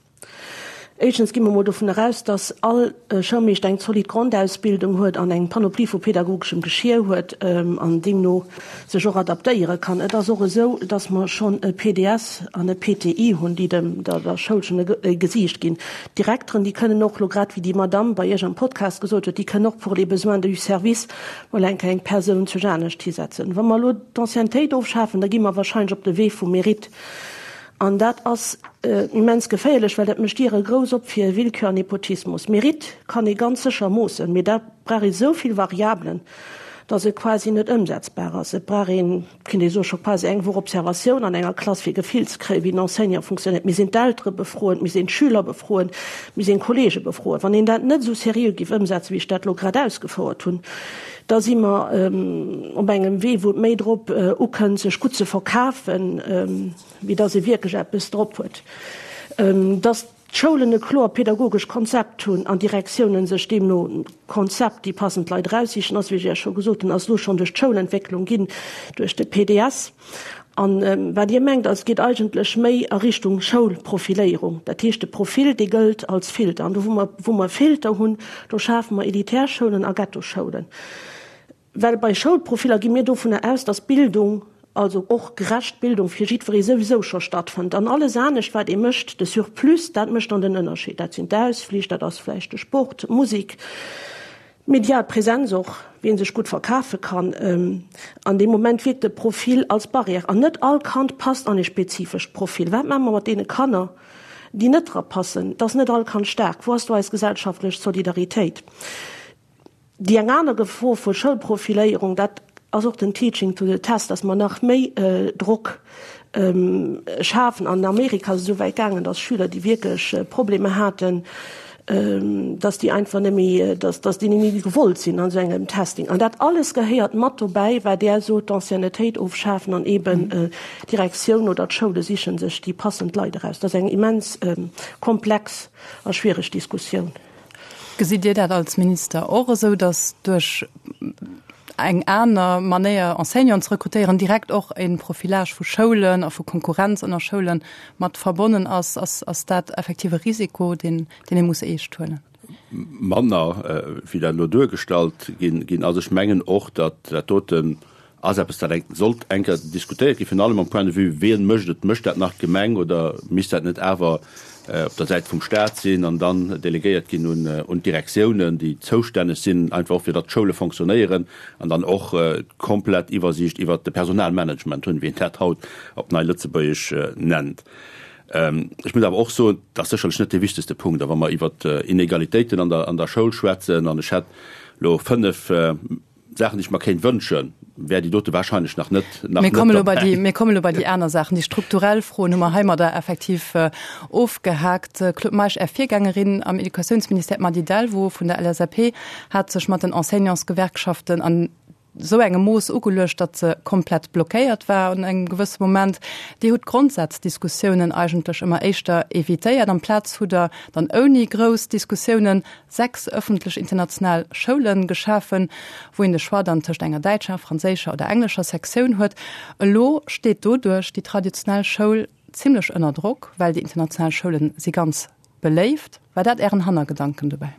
S4: Éischtens gi mer mol dovun eraus, dass all Schoulmeeschter eng zolidd Grondausbildung huet an eng Panoplie vu pädagogeschem Geschier huet an deemno sech och adaptéiere kann. Et ass och esou, dass mer schonn e PDS an e PTI hunn, déi dem der Schoul schonn e Gesiicht ginn. D'Direkteren, déi kënnen och elo, grad wéi déi Madamm bei Iech am Podcast gesot huet, déi kënnen och pour les besoins du service mol eng Kéier eng Persoun zu anescht hisetzen. Wa mer elo d'Anciennetéit ofschafen, da gi mer wahrscheinlech op de Wee vum Mérite. An dat ass immens geféierlech, well dat mécht Diere grouss op fir Willkür an Nepotismus. Mérite kann ee ganz sécher moossen, mee da brauch ee sou vill Variabelen. dass et quasi net ëmsetzbar ass. Et brauch een, kéint ee soen, scho quasi eng Woch Observatioun an enger Klass, fir e Gefill ze kréien, wéi den Enseignant funktionéiert. Mir sinn d'Eltere befroen, mir sinn d'Schüler befroen, mir sinn d'Kollege befroen. Wann een dat net esou seriö géif ëmsetzen, wéi ech dat elo grad ausgefouert hunn, da si mer op engem Wee, wou et méi drop ukënnt, sech gutt ze verkafen, wéi dass ee wierklech eppes drop huet. Dass d'Schoulen e kloer pedagogesch Konzept hunn an d'Direktiounen sech deemno Konzept déi passend Leit eraussichen, ass, wéi ech Iech scho gesot hunn, ass elo schonn duerch d'Schoulentwécklung ginn, duerch de PDS. An wat Dir mengt, ass, geet eigentlech méi a Richtung Schoulprofiléierung. Dat heescht, de Profil, dee gëllt als Filter. An do, wou mer, wou mer Filter hunn, do schafe mer elitär Schoulen a Ghettoschoulen. Well bei Schoulprofiller gi mir dovunner aus, dass Bildung, also och gerecht Bildung fir jiddweree souwisou scho stattfënnt. An alles anescht, wat ee mécht, de Surplus, dat mécht dann den Ënnerscheed. Dat sinn d'Ausflich, dat ass vläicht de Sport, d'Musek, d'medial Präsenz och, wien sech gutt verkafe kann. An deem Moment wierkt de Profil als Barrière. An net all Kand passt an e spezifescht Profil. Wat maache mer mat deene Kanner, déi net dra passen? Et ass net all Kand staark. Wou ass do eis gesellschaftlech Solidaritéit? Déi eng aner Gefor vu Schoulprofiléierung, dat ass och den Teaching to the test, dass mer nach méi Drock schafen. An Amerika ass et esou wäit gaangen, dass Schüler, déi wierklech Problemer haten, dass déi einfach net méi, dass déi net méi gewollt sinn an esou engem Testing. An dat alles gehéiert mat dobäi, wat Der sot, d'Anciennetéit ofschafen an eeben d'Direktioun oder d'Schoule siche sech déi passend Leit eraus. Dat ass eng immens komplex a schwiereg Diskussioun.
S1: Gesitt Dir dat als Minister och esou, datt duerch eng aner Manéier Enseignanten ze rekrutéieren direkt och e Profilage vu Schoulen a vu Konkurrenz ënner Schoule mat verbonnen ass? Ass dat effektiv e Risiko, deen ee muss eescht huelen?
S2: Manner wéi dat elo duergestallt ginn ass. Ech mengen och, datt dat doten Ass eppes, dat eng sollt eng Kéier diskutéiert ginn, virun allem am Point de vue, wien mécht et? Mécht dat nach d'Gemeng oder misst dat net awer op der Säit vum Stat sinn an dann delegéiert ginn un d'Direktiounen, déi zoustänneg sinn, einfach och fir datt d'Schoule fonctionnéieren an dann och d'komplett Iwwersiicht iwwert de Personalmanagement hunn, wéi een dat haut op nei Lëtzebuergesch nennt. Ech muss awer och soen, dat ass sécherlech net dee wichtegste Punkt. A wa mer iwwert Inegalitéiten an der Schoul schwätzen, an ech hätt elo fënnf, Saachen, déi ech mer kéint wënschen, wär déi dote wahrscheinlech nach net,
S1: nach Mir kommen elo bei déi, mir kommen elo bei déi aner Saachen. Déi strukturell Froen hu mer heimadder effektiv ofgehaakt. Claude Meisch, Är Virgängerin am Educatiounsministère, d'Mady Delvaux vun der LSAP, hat sech mat den Enseignantsgewerkschaften an esou engem Mooss ugeluecht, datt se komplett blockéiert war an engem gewësse Moment. Dir hutt d'Grondsaazdiskussiounen eigentlech ëmmer éischter evitéiert. Amplaz hutt Der dann ouni grouss Diskussiounen 6 ëffentlech international Schoule geschafen, wou een de Choix dann tëscht enger däitscher, franséischer oder englescher Sektioun huet. Elo steet doduerch déi traditionell Schoul zimmlech ënner Drock, well déi international Schoule si ganz beléift. War dat Ären Hannergedanken dobäi?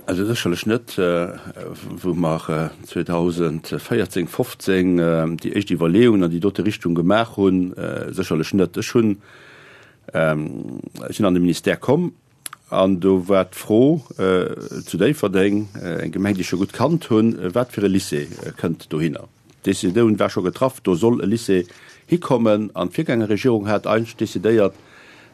S2: Also sécherlech net. Wou mer 2014, 15 déi éischt Iwwerleeungen an déi dote Richtung gemaach hunn, sécherlech net. Ech hunn Ech sinn an de Ministère komm an do war d'Fro zu Déifferdeng, eng Gemeng, déi ech scho gutt kannt hunn, wat fir e Lycée kënnt dohinner. D'Decisioun war scho getraff, do soll e Lycée hikommen an d'Virgängerregierung hat eigentlech decidéiert,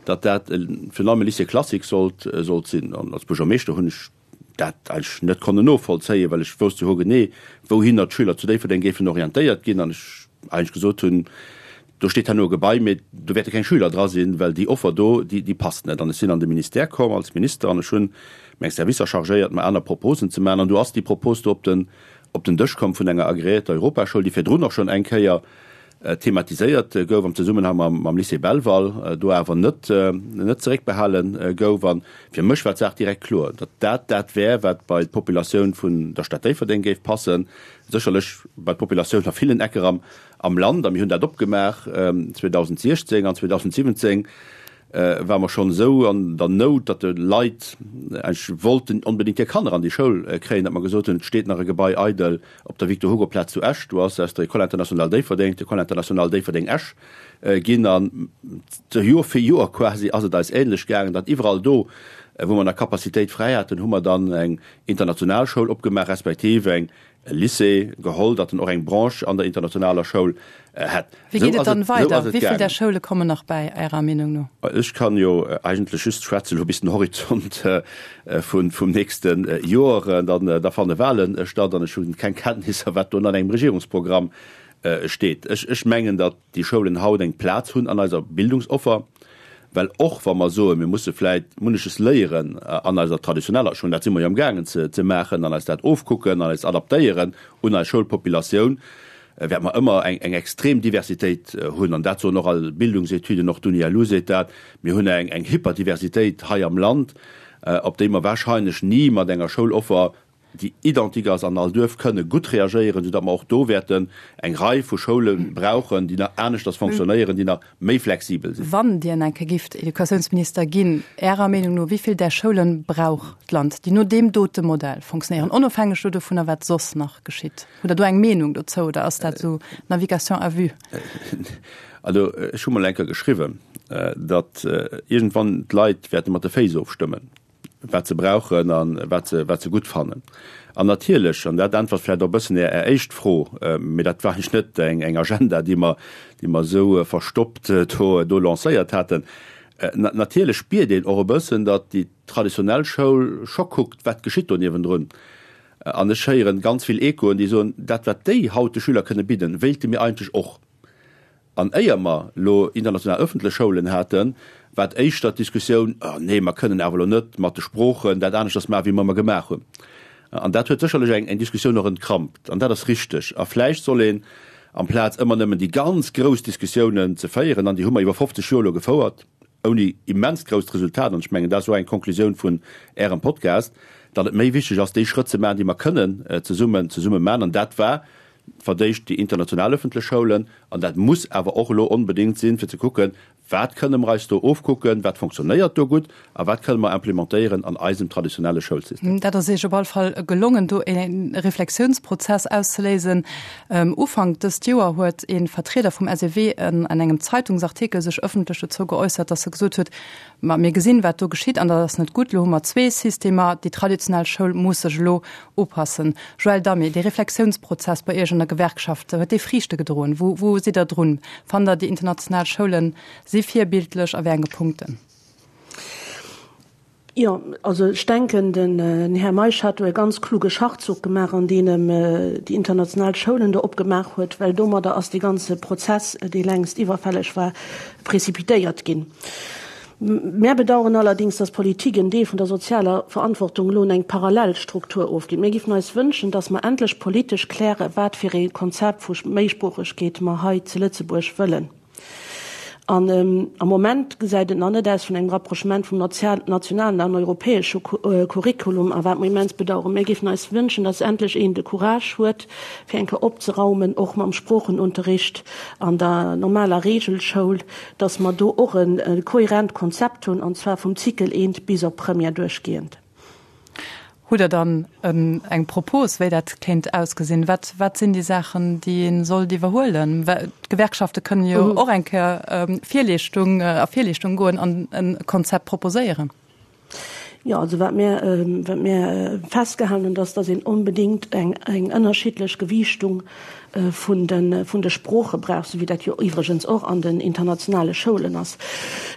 S2: datt dat virun allem e Lycée classique sollt sinn. An als Buergermeeschter hunn ech dat eigentlech net konnen novollzéien, well ech wousst jo hogenee, wouhinner d'Schüler zu Déifferdeng géifen orientéiert ginn an ech eigentlech gesot hunn, do steet herno e Gebai, mee do wäerte keng Schüler dra sinn, well déi Offer do, déi, déi passt net. An ech sinn an de Ministère komm als Minister an ech hunn meng Servicer chargéiert, mer aner Proposen ze maachen. An do ass déi Propos do op den, op den Dësch komm vun enger agreéierter Europaschoul, déi virdrun och schonn eng Kéier thematiséiert gouf am Zesummenhang mam Lycée Belval, do awer net net zeréckbehale gouf. A fir mech war d'Saach direkt kloer, datt dat dat wär, wat bei d'Populatioun vun der Stad Déifferdeng géif passen, sécherlech bei d'Populatioun a villen Ecker am am Land. A mir hunn dat opgemaach 2016 an 2017 ware mer schonn esou an der Nout, datt de Leit eigentlech wollten onbedéngt hir Kanner an déi Schoul kréien, datt mer gesot hunn, et steet nach e Gebai eidel op der Victor-Hugo-Plaz zu Esch. Do ass aus der École internationale Déifferdeng d'École internationale Déifferdeng-Esch ginn. An Joer fir Joer quasi ass et eis ähnlech gaangen, datt iwwerall do, wou mer nach Capacitéit fräi haten, hu mer dann eng international Schoul opgemaach, respektiv eng. Lycée geholl, datt en och eng Branche an der internationaler Schoul hätt.
S1: Wéi geet et dann weider? Wéi vill där Schoule kommen nach bäi, Ärer Meenung no?
S2: Ech kann jo eigentlech just schwätzen elo bis den Horizont vum nächste Joer. Dann da fanne Wahlen statt an ech hunn keng Kenntnisser, wat do an engem Regierungsprogramm steet. Ech mengen, datt déi Schoulen haut eng Plaz hunn an eiser Bildungsoffer, well och wa mer soen, mir musse vläit munneches léieren an eiser traditioneller Schoul, dat si mer jo amgaangen ze maachen, an eis dat ofkucken an eis adaptéieren un eis Schoulpopulatioun, wäerte mer ëmmer eng extrem Diversitéit hunn. An dat soen och all Bildungsetüden, och d'UNILU seet dat, mir hunn eng Hyperdiversitéit hei am Land, op déi mer wahrscheinlech ni mat enger Schouloffer déi identique ass an all Duerf, kënne gutt reagéieren, soudatt mer och do wäerten eng Rei vu Schoule brauchen, déi nach aneschters fonctionnéieren, déi nach méi flexibel sinn.
S1: Wann Dir eng Kéier gifft Educatiounsminister ginn, Ärer Meenung no, wéi vill där Schoule brauch d'Land, déi no deem dote Modell fonctionnéieren, onofhängeg do dovunner, wat soss nach geschitt? Hutt Der do eng Meenung dozou oder ass dat esou Navigation à vue?
S2: Also ech hu mol eng Kéier geschriwwen, datt iergendwann d'Leit wäerte mat de Féiss ofstëmmen. wat se brauchen a wat se, wat se gutt fannen. An natierlech, an dat äntwert vläicht och e bëssen Är, Är éischt Fro, mee dat war eigentlech net eng, eng Agenda, déi mer, déi mer esou verstoppt do, do lancéiert haten, na, natierlech spiert een och e bëssen, datt déi traditionell Schoul scho kuckt, wat geschitt do niewendrun. An ech héieren ganz vill Echoen, déi soen, dat wat déi haut de Schüler kënne bidden, wéilte mir eigentlech och. An éier mer elo international ëffentlech Schoulen haten, war et éischter d'Diskussioun, Oh nee, mer kënnen awer elo net mat de Sproochen dat aneschters maachen, wéi mer ëmmer gemaach hunn. An dat huet sécherlech eng eng Diskussioun och entkrampt. An dat ass richteg. A vläicht soll een, amplaz ëmmer nëmmen déi ganz grouss Diskussiounen ze féieren, an déi hu mer iwwer 50 Joer elo gefouert, ouni immens grousst Resultat, an ech mengen, dat ass och eng Konklusioun vun Ärem Podcast, datt et méi wichteg ass, déi Schrëtt ze maachen, déi mer kënnen zesummen zesumme maachen. An dat war verdéicht déi international öffentlech Schoulen, an dat muss awer och elo onbedéngt sinn, fir ze kucken, wat kënne mer eis do ofkucken, wat fonctionnéiert do gutt a wat kënne mer implementéieren an eisem traditionelle Schoulsystem.
S1: Dat ass Iech op all Fall gelongen, do e Reflexiounsprozess auszeléisen. Ufank dëst Joer huet e Vertrieder vum SEW an engem Zeitungsartikel sech öffentlech dozou geäussert, dass e gesot huet, Ma mir gesinn, wat do geschitt, an dat ass net gutt. Elo hu mer zwee Systemer. Déi traditionell Schoul muss sech elo upassen. Joël Damé, dee Reflexiounsprozess bei Iech an der Gewerkschaft, huet dee Friichte gedroen? Wou, wou sidd Der drun? Fannt Der, déi international Schoule si virbildlech a wéi enge Punkten?
S4: Jo, also ech denken, den Här Meisch hat do e ganz kluge Schachzuch gemaach, an deem em déi international Schoulen do opgemaach huet, well domadder ass dee ganze Prozess, dee längst iwwerfälleg war, précipitéiert ginn. Mär bedauern allerdings, dass d'Politik en Deel vun der sozialer Verantwortung elo un eng parallel Struktur ofgitt. Mir giffen eis wënschen, dass mer endlech politesch klären, wat fir ee Konzept vu Méisproochegkeet mer hei zu Lëtzebuerg wëllen. An am Moment gesäit et nach net aus vun engem Rapprochement vum nationalen an europäesche Curriculum, a wat mer immens bedauern. Mir giffen eis wënschen, dass endlech een de Courage huet, fir eng Kéier opzeraumen, och mam Sproochenunterricht an der normaler Regelschoul, dass mer do och e kohärent Konzept hunn, an zwar vum Cycle I bis op Première duerchgehend.
S1: Hutt Der dann eng Propos, wéi dat kéint ausgesinn? Wat, wat sinn déi Saachen, déi ee sollt iwwerhuelen? D'Gewerkschafte kënnen jo och eng Kéier Virleeschtung, a Virleeschtung goen an e Konzept proposéieren.
S4: Jo, also wat mir, wat mir festgehalen hunn, dass, dass een onbedéngt eng, eng ënnerschiddlech Gewiichtung vun de, vun de Sprooche brauch, esou wéi dat jo iwwregens och an den internationale Schoulen ass,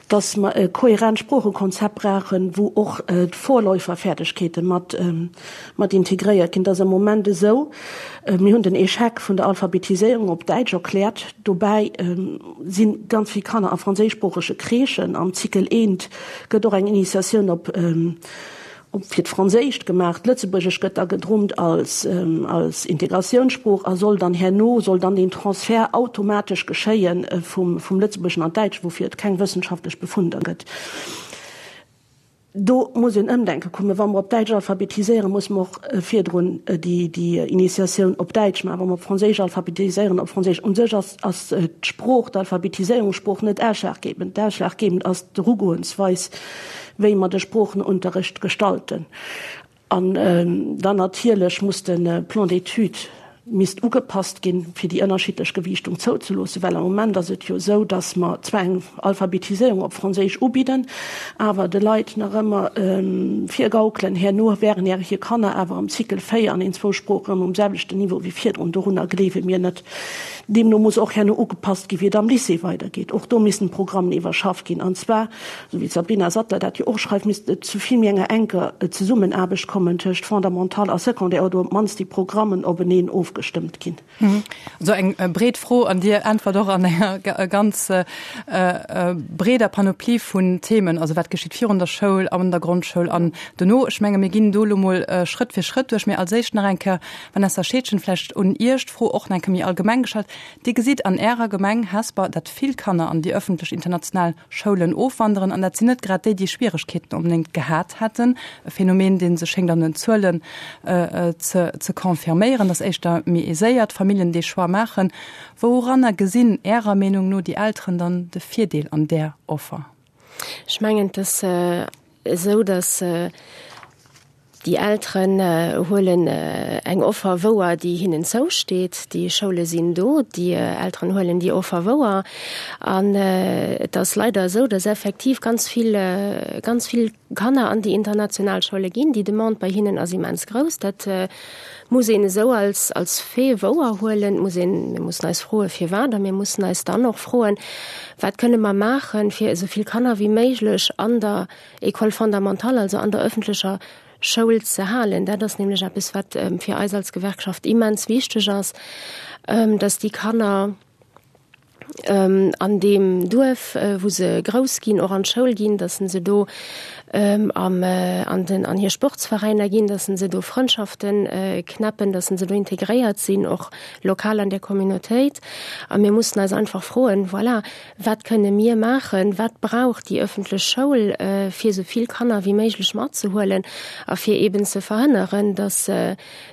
S4: dass mer e kohärent Sproochekonzept brauchen, wou och d'Vorläuferfäerdegkeete mat, mat integréiert ginn. Et ass am Moment esou, mir hunn den Échec vun der Alphabetiséierung op Däitsch erkläert, dobäi si ganz vill Kanner a franséischsproochege Crèchen am Cycle I, Gëtt och eng Initiatioun op op fir d'Franséischt gemaach. D'Lëtzebuergesch gëtt da gedrummt als als Integratiounssprooch a soll dann herno soll dann deen Transfert automatesch geschéie vum vum Lëtzebuergeschen an d'Däitscht, woufir et keng wëssenschaftlech Befunder gëtt. Do muss een Ëmdenke kommen. Wa mer op Däitsch alphabetiséieren, musse mer och virdrun déi déi Initiatioun op Däitsch maachen. Wa mer op Franséisch alphabetiséieren, op Franséisch. U sech ass ass d'Sprooch, d'Alphabetiséierungssprooch net ausschlaggebend. Ausschlaggebend ass d'Erugoensweis, wéi mer de Sproochenunterricht gestalten. An dann natierlech muss de Plan d'études. misst ugepasst ginn, fir déi ënnerschiddlech Gewiichtung zouzeloossen, well am Moment ass et jo esou, dass mer zwar eng Alphabetiséierung op Franséisch ubidden, awer de Leit nach ëmmer virgaukelen, herno wären hir Kanner awer am Cycle 4 an een zwou Sproochen erëm um selwechten Niveau wéi virdrun. Dorunner gleewe mir net. Deemno muss och herno ugepasst ginn, wéi et am Lycée weidergeet. Och do missten d'Programmen iwwerschafft ginn, an zwar, esou wéi d'Sabrina Sattler dat jo och schreift, misst et zu vill méi enger enker Zesummenaarbecht kommen tëscht Fondamental a Secondaire oder op d'mannst déi Programmen openeen ofgestëmmt ginn.
S1: Esou eng breet Fro an Dir äntwert och an enger ganz breeder Panoplie vun Themen, also wat geschitt virun der Schoul, an der Grondschoul an dono. Ech menge mir ginn do elo mol Schrëtt fir Schrëtt duerch. Mee als éischt nach eng Kéier, Vanessa Scheedgen, vläicht un Iech d'Fro och nach eng Kéier méi allgemeng gestallt. Dir gesitt an Ärer Gemeng Hesper, datt vill Kanner an déi ëffentlech international Schoulen ofwanderen, an dat sinn net grad déi, déi Schwieregkeeten onbedéngt gehat hätten. E Phänomen, dee sech schéngt an den Zuelen ze confirméieren, datt éischter méi aiséiert Familljen dee Choix maachen. Wouranner gesinn Ärer Meenung no déi Elteren dann de Virdeel an där Offer?
S3: Ech mengen, et ass esou, datt Déi Elteren huelen eng Offer wouer, déi hinnen zousteet. Déi Schoule sinn do, déi Elteren huelen déi Offer wouer. An et ass leider esou, datt effektiv ganz vill, ganz vill Kanner an déi international Schoule ginn. Déi Demande bei hinnen ass immens grouss. Dat muss een esou als, als Fait wouer huelen. Et muss een, mir mussen eis froen, firwat. A mir mussen eis dann och froen, wat kënne mer maachen, fir esou vill Kanner wéi méiglech an der École fondamentale, also an der öffentlecher Schoul ze halen. Dat ass nämlech eppes, wat fir eis als Gewerkschaft immens wichteg ass, dass déi Kanner an deem Duerf, wou se grouss ginn, och an d'Schoul ginn, dass se do am an den an hir Sportsveräiner ginn, dass se do Frëndschaften knäppen, dass se do integréiert sinn, och lokal an der Communautéit. A mir mussen eis einfach froen, voilà, Wat kënne mir maachen? Wat brauch déi ëffentlech Schoul, fir esou vill Kanner wéi méiglech matzehuelen a fir eeben ze verhënneren, dass,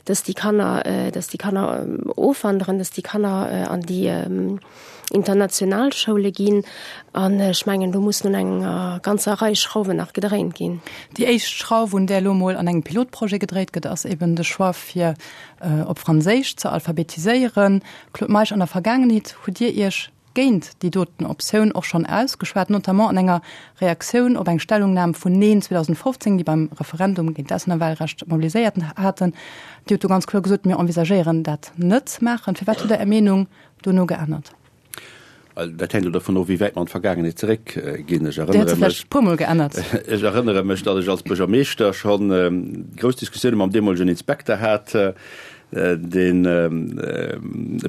S3: dass déi Kanner, dass déi Kanner ofwanderen, dass déi Kanner an déi international Schoule ginn? An ech mengen, do mussen un enger ganzer Rei Schrauwen nach gedréint ginn.
S1: Déi éischt Schrauf, un där elo mol an engem Pilotprojet gedréit gëtt, ass eeben de Choix, fir op Franséisch ze alphabetiséieren. Claude Meisch, an der Vergaangenheet hutt Dir Iech géint déi doten Optioun och schonn ausgeschwat, notamment an enger Reaktioun op eng Stellungnam vun Neen 2015, déi beim Referendum géint d'Auslännerwahlrecht mobiliséiert haten. Dir hutt do ganz kloer gesot, Mir envisagéieren dat net ze maachen. Firwat hutt Der Är Meenung dono geännert?
S2: Dat hänkt elo dovun of, wéi wäit mer an d'Vergaangenheet zeréckginn. Ech
S1: Dir hutt se vläicht e puermol geännert.
S2: Ech erënnere mech, datt ech als Buergermeeschter scho grouss Diskussioune mam deemolegen Inspekter hat, Deen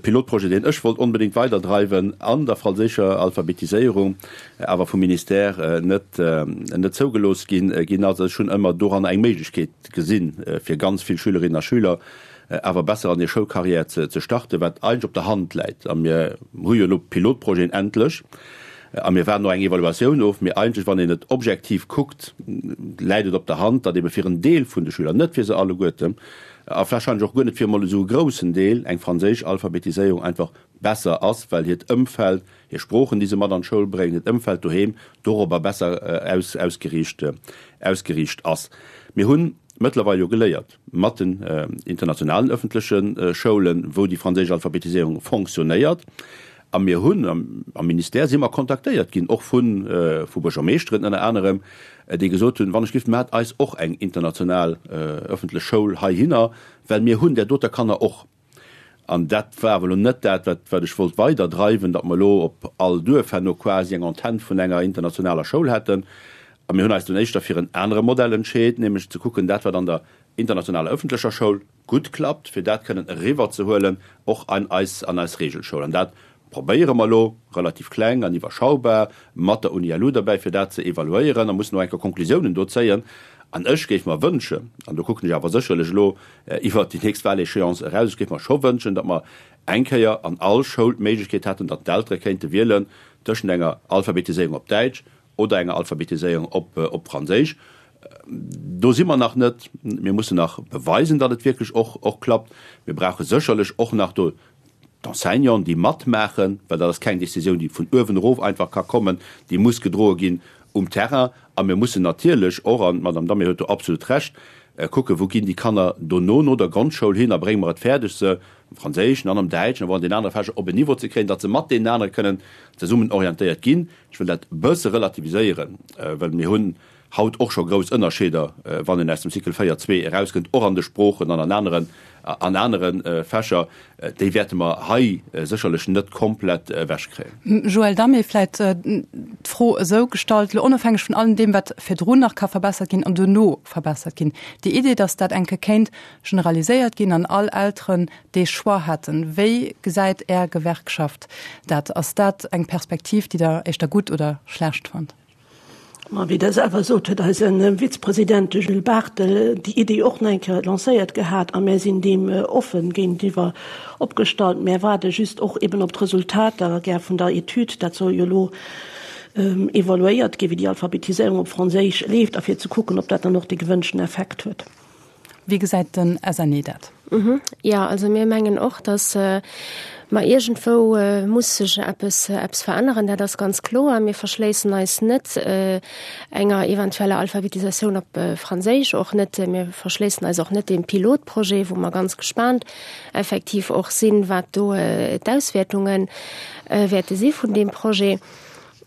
S2: Pilotprojet, deen ech wollt onbedéngt weiderdreiwen an der franséischer Alphabetiséierung, awer vum Ministère net net zougelooss ginn ginn ass. Ech hunn ëmmer doranner eng Méiglechkeet gesinn, fir ganz vill Schülerinnen a Schüler awer besser an hir Schoulcarrière ze ze starten, wat eigentlech op der Hand läit. A mir hu jo elo Pilotprojeten endlech a mir waarden och eng Evaluatioun of. Mee eigentlech, wann een et objektiv kuckt, läit et op der Hand, datt ebe fir en Deel vun de Schüler, net fir se alleguerten, a warscheinlech och guer net fir emol esou e groussen Deel, eng franséisch Alphabetiséierung einfach besser ass, well hiert Ëmfeld, hir Sproochen, déi se mat an d'Schoul bréngen, hiert Ëmfeld doheem dorobber besser ausgeriicht ausgeriicht ass. Mir hu mëttlerweil jo geléiert mat den internationalen ëffentleche Schoulen, wou déi franséisch Alphabetiséierung fonctionnéiert, a mir hunn am Ministère si mer kontaktéiert ginn, och vu vu Buergermeeschteren ënner anerem, déi gesot hunn, wann ech giff, maacht eis och eng international ëffentlech Schoul heihinner, well mir hunn där doter Kanner och. An dat war awer elo net dat, wat, wat ech wollt weiderdreiwen, datt mer elo op all Duerf herno quasi eng Antenn vun enger internationaler Schoul hätten. A mir hunn eis dunn éischter fir en anere Modell entscheet, nämlech ze kucken, dat wat an der internationaler ëffentlecher Schoul gutt klappt, fir dat kënnen eriwwerzehuelen och an eis, an eis Regelschoul. An dat probéiere mer elo, relativ kleng an iwwerschaubar, mat der UNILU derbäi, fir dat ze evaluéieren a mussen och eng Kéier Konklusiounen do zéien. An ech géif mer wënschen, an do kucken ech awer sécherlech elo iwwert déi nächst Wahléchéance eraus, ech géif mer scho wënschen, datt mer eng Kéier an all Schoul d'Méiglechkeet hätten, datt d'Eltere kéinte wielen tëschent enger Alphabetiséierung op Däitsch oder enger Alphabetiséierung op Franséisch. Do si mer nach net. Mir mussen nach beweisen, datt et wierklech och klappt. Mir brauche sécherlech och nach do d'Enseignanten, déi matmaachen, well dat ass keng Décisioun, déi vun uewen erof einfach ka kommen, déi muss gedroe ginn um Terrain. A mir mussen natierlech och, an d'Madame Damé huet do absolut Recht, Kucken, wou ginn déi Kanner dono no der Grondschoul hin a brénge mer et fäerdeg, se am Franséischen an am Däitschen awer och an den anere Fächer op en Niveau ze kréien, datt se mat deenen anere kënnen zesummen orientéiert ginn. Ech wëll dat e bësse relativiséieren, well mir hunn haut och scho grouss Ënnerscheeder, wann een aus dem Cycle 4, 2 erauskënnt, och an de Sproochen an an aneren, an anere Fächer. Déi wäerte mer hei sécherlech net komplett ewechkréien.
S1: Joël Damé, Vläicht d'Fro esou gestallt, elo onofhängeg vun allem deem, wat virdrun nach ka verbessert ginn an duerno verbessert ginn, déi Idee, datt dat eng Kéier kéint generaliséiert ginn an all Elteren dee Choix hätten, wéi gesäit Är Gewerkschaft dat? Ass dat eng Perspektiv, déi Der éischter gutt oder schlecht fannt?
S4: Ma wéi Der selwer sot, huet eise Vizepresident, de Jules Barthel, déi Idee och nach eng Kéier lancéiert gehat a mär sinn deem offen géintiwwer opgestallt. Mär waarde just och eben op d'Resultater gär vun der Etüd. Dat soll jo elo evaluéiert ginn, wéi déi Alphabetiséierung op Franséisch leeft a fir ze kucken, ob dat dann och dee gewënschten Effekt huet.
S1: Wéi gesäit den SNE dat?
S3: Jo, also mir mengen och, datt mer iergendwou muss sech eppes, eppes veränneren, dat ass ganz kloer. Mir verschléissen eis net enger eventueller Alphabetisatioun op Franséisch, och net, mir verschléissen eis och net deem Pilotprojet, wou mer ganz gespaant effektiv och sinn, wat do d'Auswäertunge wäerte si vun deem Projet.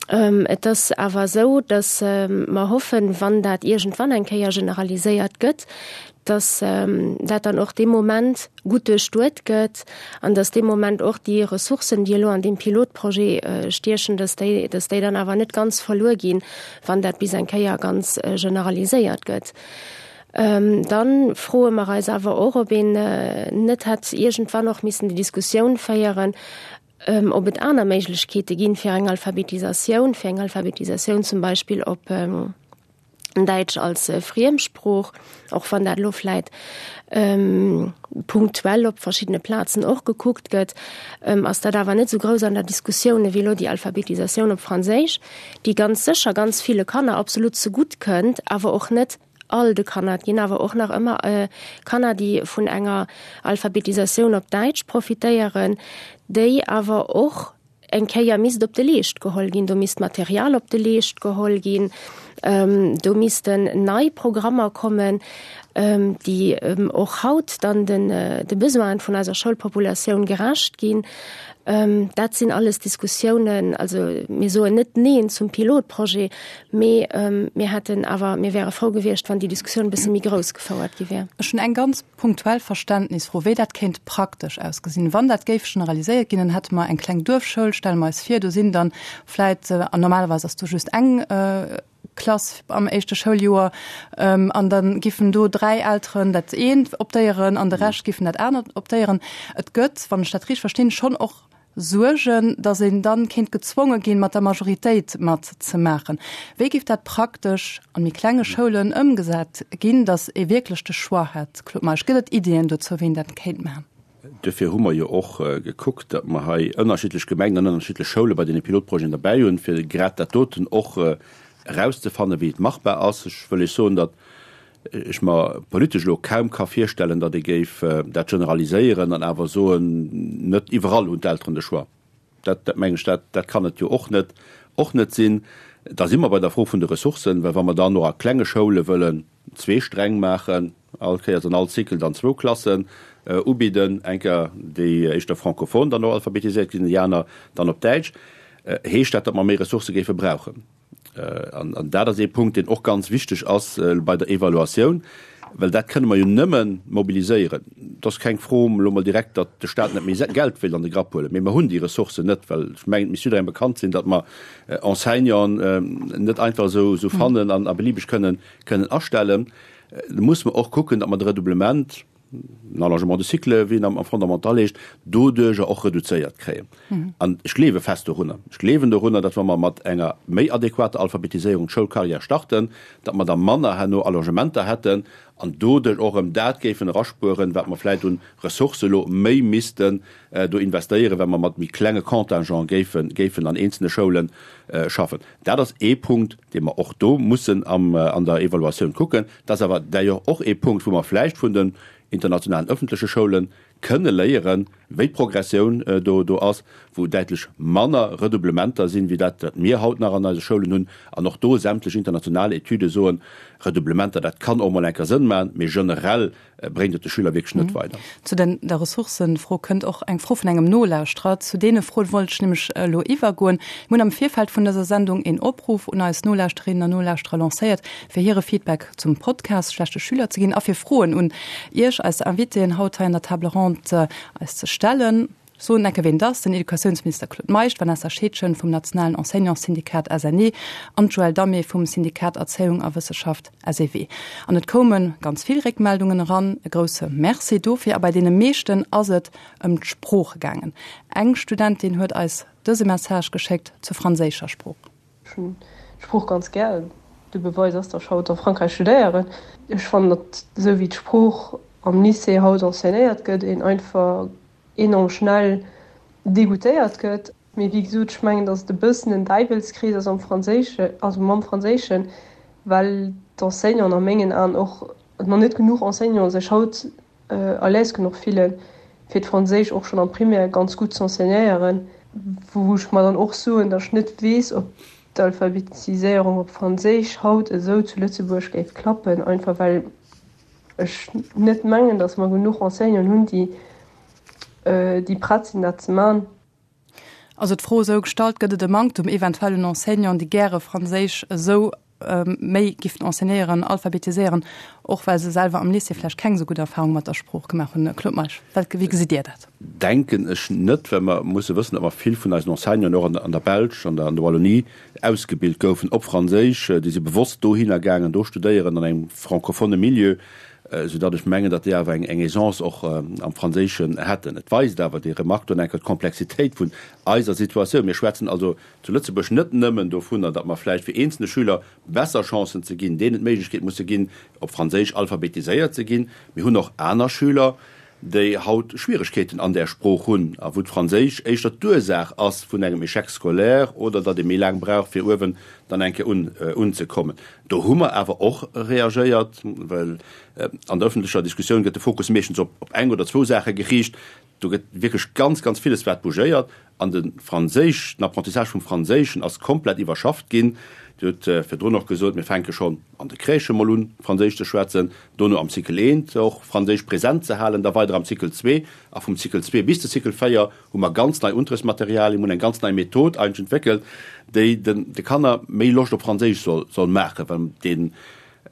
S3: Et ass awer esou, datt mer hoffen, wann dat iergendwann eng Kéier generaliséiert gëtt, datt dat dann och dee Moment gutt duerchduet gëtt an datt dee Moment och déi Ressourcen, déi elo an deem Pilotprojet stiechen, datt déi, datt déi dann awer net ganz verluer ginn, wann dat bis eng Kéier ganz generaliséiert gëtt. Dann froe mer eis awer och, ob een net hätt iergendwann och missen déi Diskussioun féieren, ob et aner Méiglechkeete ginn fir eng Alphabetisatioun, fir eng Alphabetisatioun zum Beispill op Däitsch als Friemsprooch, och wann dat elo vläit punktuell op verschiddene Plazen och gekuckt gëtt, ass dat awer net esou grouss an der Diskussioun ewéi elo déi Alphabetisatioun op Franséisch, déi ganz sécher ganz ville Kanner absolut zegutt kënnt, awer och net all de Kanner. Et ginn awer och nach ëmmer Kanner, déi vun enger Alphabetisatioun op Däitsch profitéieren, déi awer och eng Kéier misst op de Leescht geholl ginn. Do misst Material op de Leescht geholl ginn, do missten nei Programmer kommen, déi och haut dann de Besoinen vun eiser Schoulpopulatioun gerecht ginn. Dat sinn alles Diskussiounen. Also mir soen net Neen zum Pilotprojet, Mee mir hätten awer, mir wäre frou gewiescht, wann déi Diskussioun e bësse méi grouss gefouert gi wär.
S1: Ech hunn eng ganz punktuell Verständnisfro, wéi dat kéint praktesch ausgesinn. Wann dat géif generaliséiert ginn, dann hätte mer eng kleng Duerfschoul, stelle mer eis vir, do sinn dann vläit, an normalerweis ass do just eng Klass am éischte Schouljoer, an da giffen do 3 Elteren dat eent optéieren an de Rescht giffen dat anert optéieren. Et gëtt, wann ech dat richteg verstinn, schonn och Suergen, datt een dann kéint gezwonge ginn, mat der Majoritéit mat ze maachen. Wéi géif dat praktesch an méi klenge Schoulen ëmgesat ginn, datt ee wierklech de Choix hätt? Claude Meisch, Gëtt et Iddien dozou, wéi een dat kéint maachen?
S2: Duerfir hu mer jo och gekuckt, datt mer hei ënnerschiddlech Gemengen an ënnerschiddlech Schoule bei deene Pilotprojeten derbäi hunn, fir grad dat doten och erauszefannen, wéi et machbar ass. Ech wëll Iech soen, datt ech mer politesch elo kaum ka virstellen, datt ee géif dat generaliséieren an awer soen, net iwwerall hunn d'Elteren de Choix. Dat, dat mengen ech, dat, dat kann et jo och net, och net sinn. Da si mer bei der Fro vun de Ressourcen, well wa mer dann och a klenge Schoule wëllen zwee Sträng maachen, all Kéiers an all Cycle dann zwou Klassen ubidden, eng Kéier déi éischter francophone dann och alphabetiséiert ginn, déi aner dann op Däitsch, heescht dat, datt mer méi Ressourcë géife brauchen. An dat ass ee Punkt, deen och ganz wichteg ass bei der Evaluatioun, well dat kënne mer jo nëmme mobiliséieren. Et ass keng Fro elo mol direkt, datt de Stat net méi Geld wéilt an de Grapp huelen, mee mer hunn déi Ressourcen net, well ech mengen, et misst jidderengem bekannt sinn, datt mer Enseignanten net einfach esou fannen an a beliebeg kënnen astellen. Da musse mer och kucken, datt mer de Redoublement, den Allongement de cycle, wéi en am Fondamental heescht, doduerjer och reduzéiert kréien. An ech gleewe fest dorunner, ech gleewen dorunner, datt wa mer mat enger méi adequater Alphabetiséierung d'Schoulcarrière starten, datt mer da manner herno Allongementer hätten an doduerch och erëm dat géifen eraspueren, wat mer vläicht un Ressourcë elo méi missten do investéieren, well mer mat méi klenge Contingent géifen, géifen an eenzelne Schoule schaffen. Dat ass ee Punkt, dee mer och do mussen am, an der Evaluatioun kucken. Dat ass awer d'ailleurs och ee Punkt, wou mer vläicht vun den internationalen öffentleche Schoule. kënne léieren, wéi d'Progressioun do do ass, wou däitlech manner Redoublementer sinn, wéi dat, wat mir haut nach an eise Schoulen hunn. An och do sämtlech international Etüde soen, Redoublementer, dat kann och mol eng Kéier Sënn maachen, mee generell bréngt et de Schüler wierklech net weider.
S1: Zu den der Ressourcëfro kënnt och eng Fro vun engem Nolauschterer. Zu deene Froen wollt ech nämlech elo iwwergoen. Mir hunn am Virfeld vun dëser Sendung een Opruff un eis Nolauschterinnen an Nolauschterer lancéiert, fir hire Feedback zum Podcast Schlechte Schüler ze ginn a fir Froen un Iech, eis Invitéen haut hei an der Table ronde, eis ze stellen. Soen enke ween et ass, den Educatiounsminister Claude Meisch, d'Vanessa Scheedgen vum nationalen Enseignantssyndikat SNE an d'Joëlle Damé vum Syndikat Erzéiung a Wësseschaft SEW. An et koume ganz vill Réckmeldungen eran, e grousse Merci dofir. A bei deene meeschten ass et ëm d'Sprooch gaangen. Eng Studentin huet eis dëse Message geschéckt zur franséischer Sprooch.
S5: Ech hunn d'Sprooch ganz gär. De Beweis ass, datt ech haut a Frankräich studéieren. Ech fannen, datt esou wéi d'Sprooch am Lycée haut enseignéiert gëtt, een einfach enorm schnell degoutéiert gëtt. Mee wéi gesot, ech mengen, datt et e bëssen en Däiwelskrees ass am Franséischen, also mam Franséischen, well d'Enseignanten a mengen Aen och, nach net genuch Enseignanten sech haut à l'aise genuch fillen, fir d'Franséisch och schonn am Primaire ganz gutt z'enseignéieren, wou ech mer dann och soen, datt ech net weess, ob d'Alphabetiséierung op Franséisch haut esou zu Lëtzebuerg géif klappen, einfach well ech net mengen, datt mer genuch Enseignanten hunn, déi déi prett sinn, dat ze man.
S1: Also d'Fro esou gestallt, Gëtt et e Manktum eventuell un Enseignanten, déi gäre Franséisch esou méi giffen enseignéieren, alphabetiséieren, och well se selwer am Lycée vläicht keng esou gutt Erfahrung mat der Sprooch gemaach hunn? Claude Meisch, wat, wéi gesitt Dir dat?
S2: Denken ech net, well mer musse wëssen, datt mer vill vun eisen Enseignanten och an der Belsch, an der Wallonie ausgebilt goufen op Franséisch. Déi si bewosst dohinner gaangen, do studéieren an engem francophone Milieu, soudatt ech mengen, datt déi awer eng Aisance och am Franséischen hätten. Et weist awer déi Remarque do enker d'Komplexitéit vun eiser Situatioun. Mir schwätzen also zu Lëtzebuerg net nëmmen dovunner, datt mer vläicht fir eenzelne Schüler besser Chancen ze ginn, deenen d'Méiglechkeet musse ginn, op Franséisch alphabetiséiert ze ginn. Mir hunn och aner Schüler, déi haut Schwieregkeeten an där Sprooch hunn a wou d'Franséisch éischter d'Ursaach ass vun engem Échec scolaire oder datt ee méi laang brauch, fir uewen dann eng Kéier un unzekommen. Do hu mer awer och reagéiert, well an der öffentlecher Diskussioun gëtt de Fokus meeschtens op eng oder zwou Saache geriicht. Do gëtt wierklech ganz, ganz villes wat bougéiert. An de Franséisch, den Apprentissage vum Franséischen ass komplett iwwerschafft ginn. Dir hutt virdrun och gesot, mir fänke schonn an de Crèchë mol un, Franséisch ze schwätzen, dono am Cycle eent och Franséisch present ze halen, da weider am Cycle zwee. A vum Cycle zwee bis de Cycle 4 hu mer ganz nei Unterrichtsmaterialien, mir hunn eng ganz nei Method eigentlech entwéckelt, déi den de Kanner méi Loscht op Franséisch soll soll maachen, well deen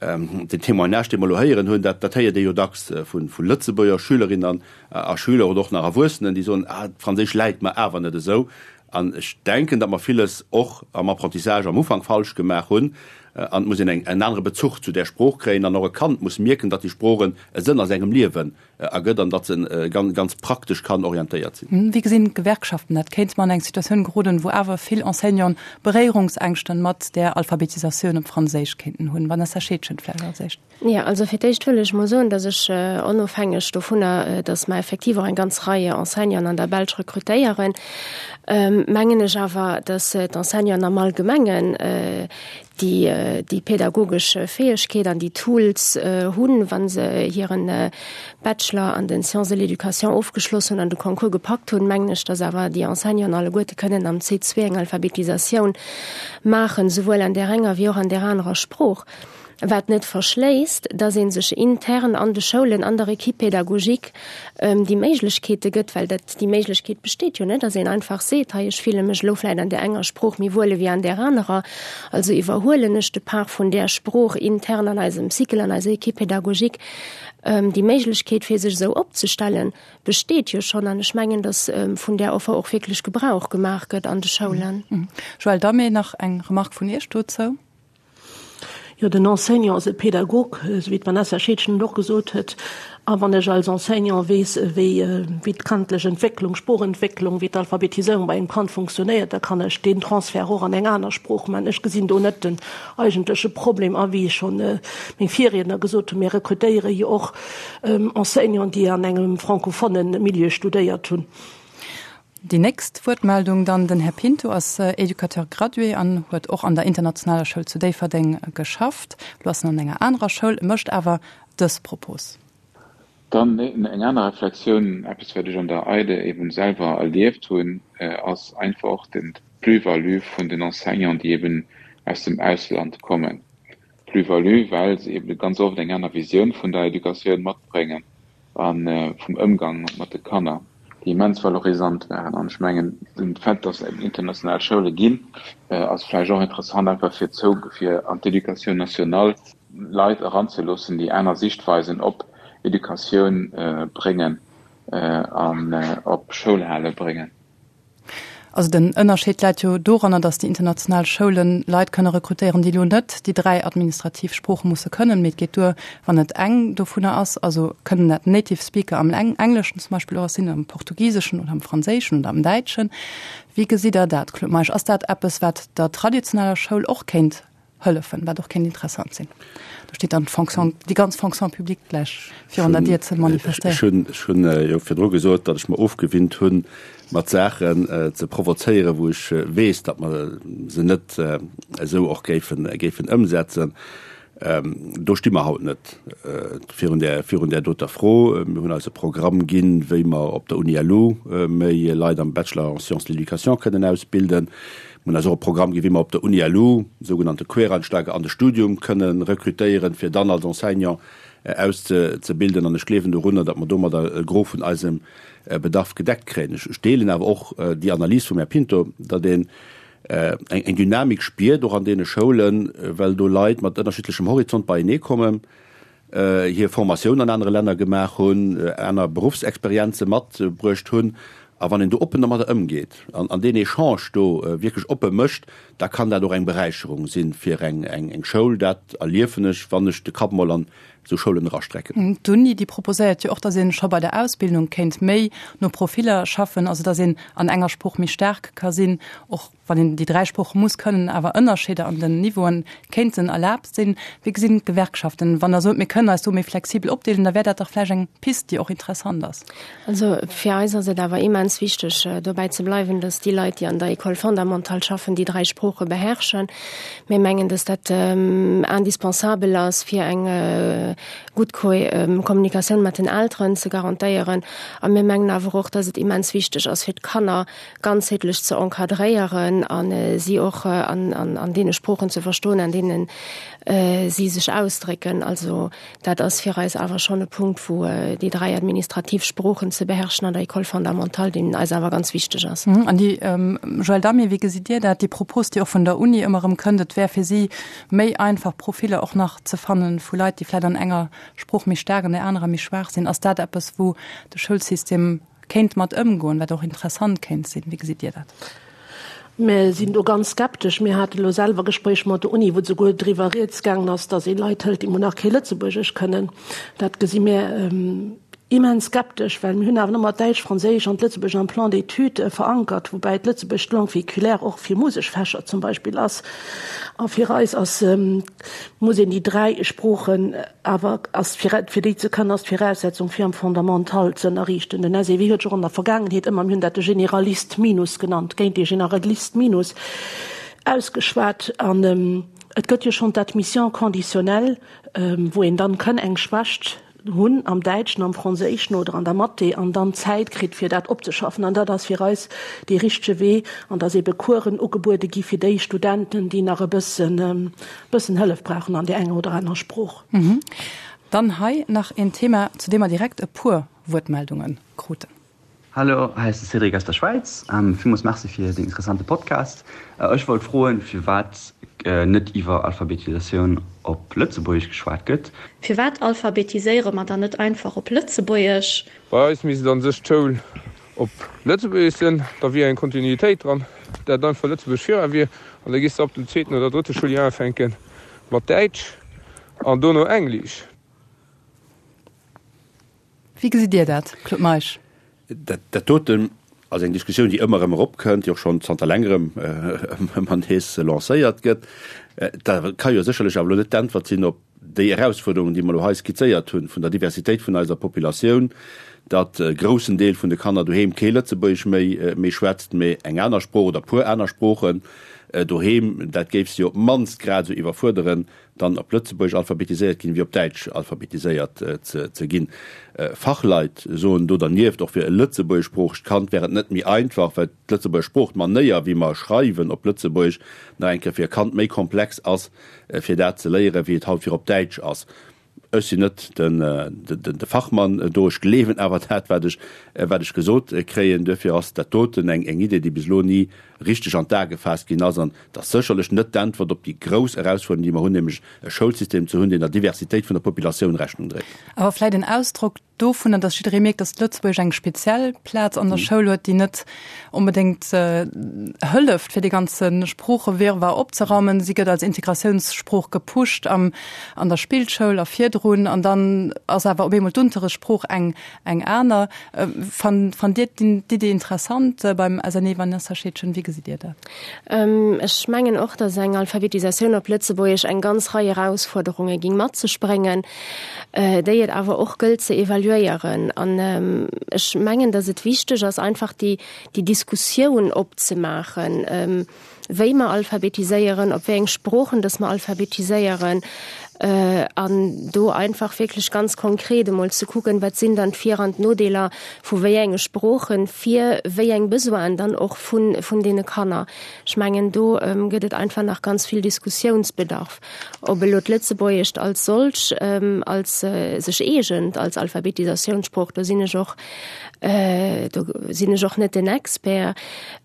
S2: den Témoignage, dee mer elo héieren hunn, dat dat héiert ee jo dacks vu vu Lëtzebuerger Schülerinnen a Schüler oder och nach Erwuessenen, déi soen, ah, d'Franséisch läit mer awer net esou. An ech denken, datt mer villes och am Apprentissage am Ufank falsch gemaach hunn. An et muss een eng en anere Bezuch zu där Sprooch kréien an och e Kand muss mierken, datt déi Sprooch en e Sënn a sengem Liewen ergëtt an datt se ganz, ganz praktesch kann orientéiert
S1: sinn. Wéi gesinn d'Gewerkschaften dat? Kéinte mer an eng Situatioun geroden, wou awer vill Enseignanten Beréierungsängschten mat där Alphabetisatioun op Franséisch kéinten hunn? Vanessa Scheedgen vläicht als éischt.
S3: Jo, also fir d'éischt wëll ech mol soen, datt ech, onofhängeg dovunner, datt mer effektiv och eng ganz Rei Enseignanten an der Belsch rekrutéieren, mengen ech awer, datt d'Enseignanten am Allgemengen déi déi pädagogesch Fäegkeet an déi Tools hunn, wa se hiren Bachelor an den Sciences de l'éducation ofgeschloss hunn an de Concours gepackt hunn, mengen ech, datt awer déi Enseignanten alleguerte kënnen am C2 eng Alphabetisatioun maachen, souwuel an där enger wéi och an där anerer Sprooch. Wat net verschléisst, dass ee sech intern an de Schoulen, an der Équipe pédagogique déi Méiglechkeete gëtt, well dat, déi Méiglechkeet besteet jo, net, dass een einfach seet, hei ech fille mech elo vläicht an där enger Sprooch méi wuel ewéi an där anerer, also iwwerhuelen ech de Part vun där Sprooch intern an eisem Cycle, an eiser Équipe pédagogique. Déi Méiglechkeet, fir sech esou opzestellen, besteet jo schonn an ech mengen, dass vun där Offer och wierklech Gebrauch gemaach gëtt an de Schoulen.
S1: Joëlle Damé, nach eng Remarque vun Iech dozou?
S4: Jo, den Enseignant ass e Pädagog, esou wéi d'Vanessa Scheedgen et och gesot huet. A wann ech als Enseignant weess, wéi wéi d'kandlech Entwécklung, Sproochentwécklung, wéi d'Alphabetiséierung bei engem Kand funktionéiert, da kann ech deen Transfert och an eng aner Sprooch maachen. Ech gesinn do net den eigentleche Problem. A wéi schonn meng Virriedner gesot hunn, mir rekrutéiere jo och Enseignanten, déi an engem francophone Milieu studéiert hunn.
S1: Déi nächst Wuertmeldung dann, den Här Pinto ass Éducateur gradué an huet och an der internationaler Schoul zu Déifferdeng geschafft. Elo ass en an enger anerer Schoul, mécht awer dës Propos.
S6: Dann eng aner Reflexioun, eppes wat ech an der EIDE eben selwer erlieft hunn, ass einfach och den d'Plus-value vun den Enseignanten, déi eben aus dem Ausland kommen. Plus-value, well se eben ganz oft eng aner Visioun vun der Educatioun matbréngen a vum Ëmgang mat de Kanner, déi immens valorisant waren. An ech mengen, den Fait, dass et eben international Schoule ginn, ass vläicht och interessant einfach fir zou, fir an d'Éducation nationale Leit eranzeloossen, déi aner Sichtweisen op Educatioun bréngen an op Schoulhale bréngen.
S1: Also den Ënnerscheed läit jo doranner, datt déi international Schoulen Leit kënne rekrutéieren, déi elo net déi 3 administrativ Sprooche musse kënnen, mee et geet duer, wann et eng dovunner ass. Also kënnen dat Native Speaker am Engleschen zum Beispill och sinn, am Portugiseschen oder am Franséischen oder am Däitschen. Wéi gesitt Der dat, Claude Meisch? Ass dat eppes, wat der traditioneller Schoul och kéint hëllefen, wat och kéint interessant sinn. Do steet dann d'Fonction, déi ganz Fonction publique gläich virun der Dier ze manifestéieren.
S2: Ech hunn jo virdru gesot, datt ech mer ofgewinnt hunn, mat Saachen ze provozéieren, wou ech weess, datt mer se net esou och géifen, géifen ëmsetzen. Do sti mer haut net virun där, virun där doter Fro. Mir hunn eis e Programm ginn, wéi mer op der Uni-LU méi Leit am Bachelor en sciences de l'éducation kënnen ausbilden. Mir hunn eis och e Programm ginn, wéi mer op der Uni-LU sougenannte Quereinsteiger an de Studium kënne rekrutéieren, fir dann als Enseignant auszebilden. An ech gleewen dorunner, datt mer domadder e Gros vun eisem Bedarf gedeckt kréien. Ech deelen awer och déi Analys vum Här Pinto, datt een eng Dynamik spiert, och an deene Schoulen, well do Leit mat ënnerschiddlechem Horizont beienee kommen, hir Formatioun an anere Länner gemaach hunn, aner Beruffsexperienze matbruecht hunn. A wann een do oppen domadder ëmgeet an deen Echange do wierklech oppe mécht, da kann dat och eng Beräicherung si fir eng Schoul. Dat erliefen ech, wann ech de Kapp mol an esou Schoulen erastrecken.
S1: D'Uni, déi proposéiert jo och, datt ee scho bei der Ausbildung kéint méi no Profiller schaffen, also datt een an enger Sprooch méi staark ka sinn, och wann een déi 3 Sprooche muss kënnen, awer Ënnerscheeder an den Niveauen kéinten erlaabt sinn. Wéi gesinn d'Gewerkschaften, wann Der sot, mir kënnen eis do méi flexibel opdeelen, da wär dat dach vläicht eng Pist, déi och interessant ass.
S3: Also fir eis ass et awer immens wichteg, dobäi ze bleiwen, dass déi Leit, déi an der École fondamentale schaffen, déi 3 Sprooche beherrschen. Mir mengen, dass dat indispensabel ass, fir eng gutt Kommunikatioun mat den Elteren ze garantéieren. A mir mengen awer och, dass et immens wichteg ass, fir d'Kanner ganzheetlech ze encadréieren a si och an deene Sproochen ze verstoen, an deene si sech ausdrécken. Also dat ass fir eis awer schonn e Punkt, wou déi 3 administrativ Sproochen ze beherrschen an der École fondamentale, deen eis awer ganz wichteg ass.
S1: An déi, Joëlle Damé, wéi gesitt Dir dat, déi Propos, déi och vun der Uni ëmmer erëm kënnt, et wär fir si méi einfach, Profiller och nach ze fanne vu Leit, déi vläicht an enger Sprooch méi staark, an där anerer méi schwaach sinn. Ass dat eppes, wou de Schoulsystem kéint mat ëmgoen, wat och interessant kéint sinn. Wéi gesitt Dir dat?
S4: Mir sinn do ganz skeptesch. Mir hate lo selwer Gespréich mat der Uni, wou souguer driwwer rieds gaangen ass, datt ee Leit hëlt, déi mol nach kee Lëtzebuergesch kënnen. Dat gesi mir immens skeptesch, well mir hunn awer ëmmer d'Däitsch, Franséisch an d'Lëtzebuergesch am Plan d'études verankert, woubäi d'Lëtzebuergesch d'Langue véhiculaire och fir Museksfächer zum Beispill ass. A fir eis ass, muss een déi 3 Sproochen Awer ass fir fir déi ze kënnen, ass d'Viraussetzung fir am Fondamental ze ënnerriichten. Den SEW huet sech och an der Vergaangenheet ëmmer, mir hunn dat de Généraliste minus genannt, géint dee Généraliste minus ausgeschwat. An et gëtt jo schonn d'Admission conditionnelle, wou een dann kënn eng Schwächt hunn am Däitschen, am Franséischen oder an der Mathé an dann Zäit kritt fir dat opzeschaffen. An dat ass fir eis dee richtege Wee an dass ebe Coursen ugebuede gi fir déi Studenten, déi nach e bëssen Bëssen Hëllef brauchen an där enger oder anerer Sprooch.
S1: Dann hei nach een Thema, zu deem mer direkt e puer Wuertmeldunge kruten.
S7: Hallo, hei ass de Cédric aus der Schwäiz. Villmools Merci fir den interessante Podcast. Ech wollt froen, firwat net iwwer Alphabetisatioun op Lëtzebuergesch geschwat gëtt.
S8: Firwat alphabetiséiere mer dann net einfach op Lëtzebuergesch?
S9: Bei eis misst an sech d'Schoul op Lëtzebuergesch sinn, da wier eng Kontinuitéit dran, dat einfach Lëtzebuergesch vira wier, an da gees de ab dem zweeten oder drëtte Schouljoer ufänke mat Däitsch an dono Englisch.
S1: Wéi gesitt Dir dat, Claude Meisch?
S2: Dat doten ass eng Diskussioun, déi ëmmer erëm eropkënnt, déi och schonn zanter längerem ëmmer nees lancéiert gëtt. Dat ka jo sécherlech awer elo net d'Äntwert sinn op déi Erausfuerderungen, déi mer elo hei skizzéiert hunn, vun der Diversitéit vun eiser Populatioun, datt e groussen Deel vun de Kanner doheem kee Lëtzebuergesch méi méi schwätzt, mee eng aner Sprooch oder e puer aner Sproochen. Doheem. Dat géif se jo op d'mannst grad esou iwwerfuerderen, dann op Lëtzebuergesch alphabetiséiert ginn, wéi op Däitsch alphabetiséiert ze ginn. Fachleit soen do dernieft, och fir e lëtzebuergeschsproochegt Kand wär et net méi einfach, well d'Lëtzebuerger Sprooch, d'Manéier wéi mer schreiwen op Lëtzebuergesch, nach eng Kéier fir e Kand méi komplex ass, fir dat ze léieren, wéi et haut fir op Däitsch ass. Ech sinn net de Fachmann do, ech gleewen awer dat, wat ech, wat ech gesot kréien. Duerfir ass dat doten eng Idee, déi bis elo ni richteg an d'A gefaasst ginn ass. An et ass sécherlech net d'Äntwert op déi grouss Erausfuerderung, déi mer hunn, nämlech e Schoulsystem ze hunn, deen der Diversitéit vun der Populatioun Rechnung dréit.
S1: Awer vläicht en Ausdrock dovunner, dass jidderee mierkt, dass d'Lëtzebuergesch eng speziell Plaz an der Schoul huet, déi net onbedéngt hëlleft, fir dee ganze Sproochewirrwarr opzeraumen. Si gëtt als Integratiounssprooch gepusht am, an der Spillschoul a virdrun, an dann ass awer op eemol d'Unterrichtssprooch eng, eng aner. Fannt, fannt Dir d'Idee interessant beim SNE, Vanessa Scheedgen? Wéi gesitt Dir dat?
S3: Ech mengen och, dass eng Alphabetisatioun op Lëtzebuergesch eng ganz Rei Erausfuerderunge ging mat sech bréngen. déi et awer och gëllt ze evaluéieren. An ech mengen, datt et wichteg ass, einfach déi, déi Diskussioun opzemaachen, wéi mer alphabetiséieren, op wéi eng Sproochen datt mer alphabetiséieren, an do einfach wierklech ganz konkret emol ze kucken, wat sinn dann d'Vir an d'Nodeeler vu wéi enge Sproochen fir wéi eng Besoinen dann och vun, vun deene Kanner. Ech mengen, do gëtt et einfach nach ganz vill Diskussiounsbedarf. Ob elo d'Lëtzebuergescht als solch, als sech eegent als Alphabetisatiounssprooch, do sinn ech och, do sinn ech och net den Expert.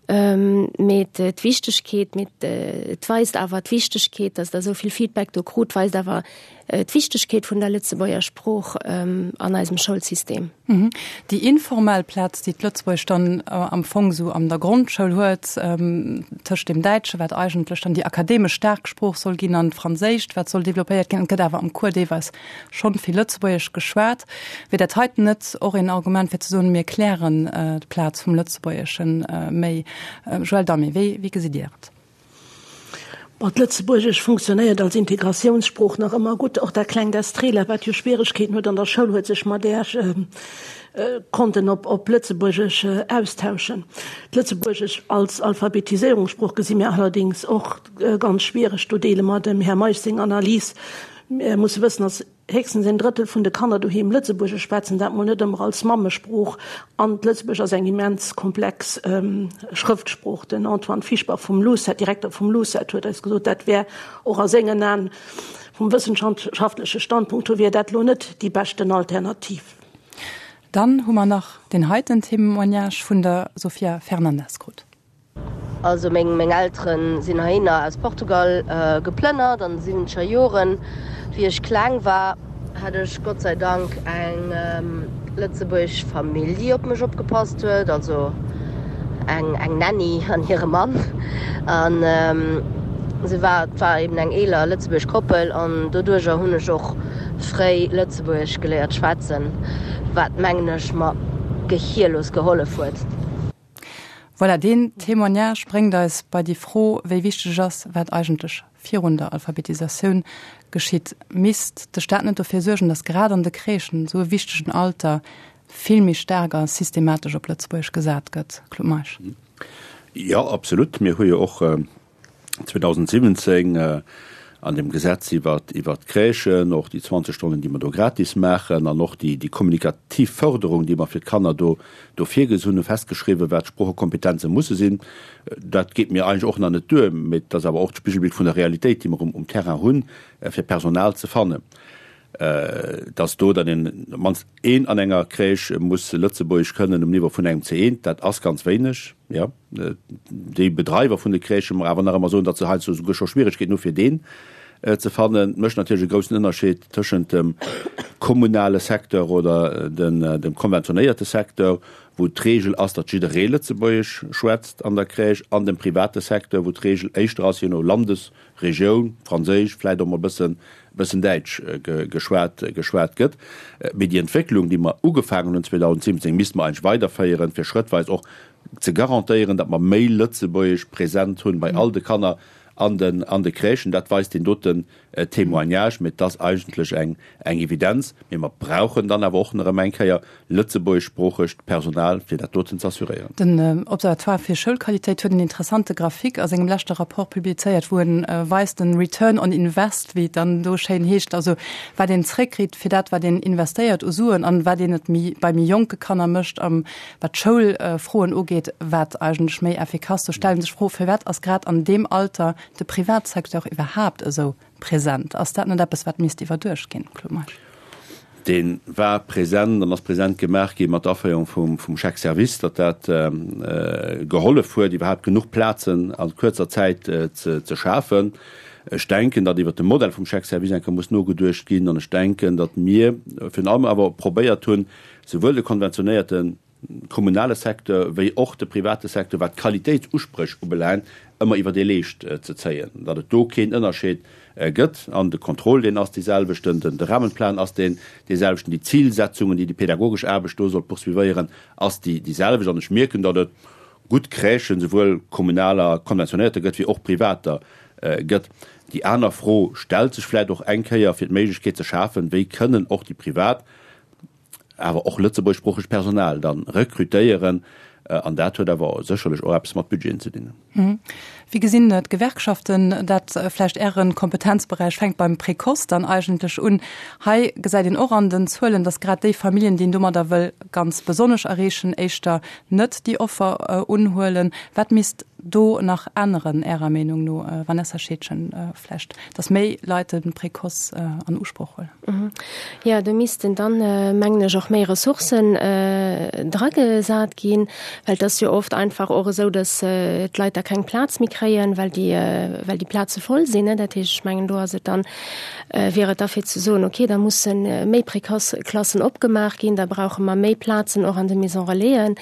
S3: Mee d'Wichtegkeet, mee et weist awer d'Wichtegkeet, datt Der esou vill Feedback do krut, weist awer d'Wichtegkeet vun der Lëtzebuerger Sprooch an eisem Schoulsystem.
S1: Déi informell Plaz, déi d'Lëtzebuergesch dann am Fong esou an der Grondschoul huet, tëscht dem Däitsche, wat eigentlech dann déi akademesch staark Sprooch soll ginn, an d'Franséischt, wat soll developpéiert ginn, et gëtt awer am Cours deelweis schonn vill Lëtzebuergesch geschwat. Wier dat heiten net och een Argument fir ze soen, mir klären d'Plaz vum Lëtzebuergesche méi? Joël Damé, wéi gesitt Dir et?
S4: Bon, d'Lëtzebuergesch funktionéiert als Integratiounssprooch nach ëmmer gutt. Och dat klengt Estrela, wat jo Schwieregkeeten huet an der Schoul, huet sech mat där konnten op op Lëtzebuergesch austauschen. D'Lëtzebuergesch als Alphabetiséierungssprooch gesi mir allerdéngs och ganz schwiereg. Do deele mer dem Här Meisch seng Analys. Mir musse wëssen, dass Héchstens een Drëttel vun de Kanner doheem Lëtzebuergesch schwätzen, dat mol net ëmmer als Mammesprooch. An d'Lëtzebuergesch ass eng immens komplex Schrëftsprooch. Den Antoine Fischbach vum LUCET, Direkter vum LUCET, huet eis gesot, dat wär och a sengen Aen, vum wëssenschaftleche Standpunkt hier, wier dat elo net déi beschten Alternativ.
S1: Dann hu mer nach deen heiten Témoignage vun der Sofia Fernandes krut.
S10: Also meng meng Elteren sinn heihinner aus Portugal geplënnert an de siwwenzeger Joren. Wéi ech kleng war, hat ech Gott sei Dank eng lëtzebuergesch Famill déi op mech opgepasst huet, also eng eng Nanny an hire Mann. An se war et war eben eng eeler lëtzebuergesch Koppel an doduercher hunn ech och fréi lëtzebuergesch geléiert schwätzen, wat mengen ech mer gehierlos gehollef huet.
S1: Voilà, deen Témoignage bréngt eis bei déi Fro, wéi wichteg et ass, wat eigentlech virun der Alphabetisatioun geschitt. Misst de Staat net dofir suergen, datt grad an de Crèchen, esou e wichtegen Alter, vill méi staark a systematesch op Lëtzebuergesch gesat gëtt? Claude Meisch.
S2: Jo, absolut. Mir hu jo och 2017 an dem Gesetz iwwert d'Crèchen, och déi 20 Stonnen, déi mer do gratis maachen, an och déi kommunikativ Förderung, déi mer fir d'Kanner do virgesinn hunn, festgeschriwwen, wat d'Sproochekompetenze musse sinn. Dat geet mir eigentlech och nach net duer, mee et ass awer och d'Spigelbild vun der Realitéit, déi mer um Terrain hunn, fir Personal ze fannen. Dass do dann een, op d'mannst een an enger Crèche muss Lëtzebuergesch kënnen um Niveau vun engem C1, dat ass ganz wéineg, jo. Déi Bedreiwer vun de Crèchen mer awer nach ëmmer soen, datt se heiansdo souguer scho Schwieregkeeten hu fir deen ze fannen. Et mécht natierlech e groussen Ënnerscheed tëschent dem kommunale Secteur oder dem konventionéierte Secteur, wou d'Regel ass, datt jidderee Lëtzebuergesch schwätzt an der Crèche, an dem private Secteur, wou d'Regel éischter ass, je no Landesregioun, Franséisch, vläicht och mol e bëssen, bëssen Däitsch geschwat, geschwat gëtt. Mee déi Entwécklung, déi mer ugefaangen hunn 2017, misste mer eigentlech weiderféieren, fir schrëttweis och ze garantéieren, datt mer méi Lëtzebuergesch present hunn bei all de Kanner. an den an de Crèchen. Dat weist deen doten Témoignage. Mee et ass eigentlech eng eng Evidenz. Mee mer brauchen dann awer och nach erëm eng Kéier lëtzebuergeschsproochegt Personal, fir dat doten ze assuréieren.
S1: Den Observatoire fir Schoulqualitéit huet en interessante Graphique a sengem leschte Rapport publizéiert, wou en weist, den Return on Invest, wéi et dann do schéin heescht, also wat een zréckkritt fir dat, wat een investéiert u Suen an wat een et méi bei méi jonke Kanner mécht, wat d'Schoulfroen ugeet, wat eigentlech méi effikass. Do stelle sech d'Fro, Firwat ass grad an deem Alter de Privatsecteur iwwerhaapt esou present? Ass dat net eppes, wat misst iwwerduecht ginn, Claude Meisch?
S2: Dee war present an ass present gemaach gi mat der Aféierung vum Chèque service, datt dat gehollef huet, iwwerhaapt genuch Plazen a kuerzer Zäit ze schafen. Ech denken, datt iwwert de Modell vum Chèque service eng Kéier muss nogeduecht ginn. An ech denken, datt mir virun allem awer probéiert hunn, souwuel de konventionéierte kommunale Secteur wéi och de private Secteur, wat d'Qualitéitsuspréch ubelaangt, ëmmer iwwer ee Leescht ze zéien, datt et do keen Ënnerscheed gëtt. An de Contrôle, deen ass deeselwechten, de Rahmenplan ass deen deeselwechten, déi Zilsetzungen, déi déi pädagogesch Aarbecht do soll poursuivéieren, ass déi déiselwecht. An ech mierken, datt et gutt Crèchen, souwuel kommunaler, konventionéierter gëtt, wéi och privater gëtt. Déi aner Fro stellt sech vläicht och eng Kéier, fir d'Méiglechkeet ze schafen, wéi kënnen och déi privat awer och lëtzebuergeschsproochegt Personal dann rekrutéieren, an dat huet awer sécherlech och eppes mat Budgeten ze dinn.
S1: Wéi gesinn d'Gewerkschaften dat? Vläicht Äre Kompetenzberäich fänkt beim Précoce dann eigentlech un. Hei gesäit een och an den Zuelen, datt grad déi Familljen, déi een domadder wëll ganz besonnesch erreechen, éischter net déi Offer unhuelen. Wat misst do nach änneren, Ärer Meenung no, Vanessa Scheedgen, vläicht, datt méi Leit de Précoce an Usproch huelen?
S3: Jo, do missten dann, mengen ech, och méi Ressourcen dragesat ginn, well et ass jo oft einfach och esou, datt d'Leit da keng Plaz méi kréien, well déi, well déi Plaze voll sinn. Dat heescht, ech mengen, do ass et dann, wier et da fir ze soen, okay, da musse méi Précoce-Klassen opgemaach ginn, da brauche mer méi Plazen och an de Maison relaisen.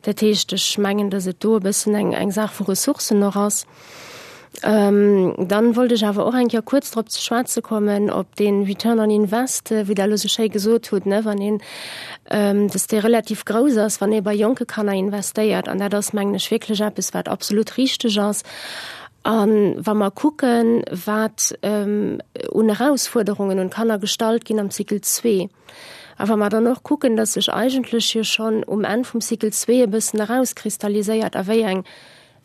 S3: Dat heescht, ech mengen, datt et do e bëssen eng, eng Saach vu Ressourcen och ass. Dann wollt ech awer och eng Kéier kuerz drop ze schwätze kommen, op dee Return on Invest, wéi Der elo esou schéi gesot hutt, ne, wann een, dass dee relativ grouss ass, wann ee bei jonke Kanner investéiert. An dat ass, mengen ech, wierklech eppes, wat absolut richteg ass. A wa mer kucken, wat un Erausfuerderungen un d'Kanner gestallt ginn am Cycle zwee, a wa mer dann och kucken, dass sech eigentlech jo schonn um Enn vum Cycle zwee e bëssen erauskristalliséiert, a wéi eng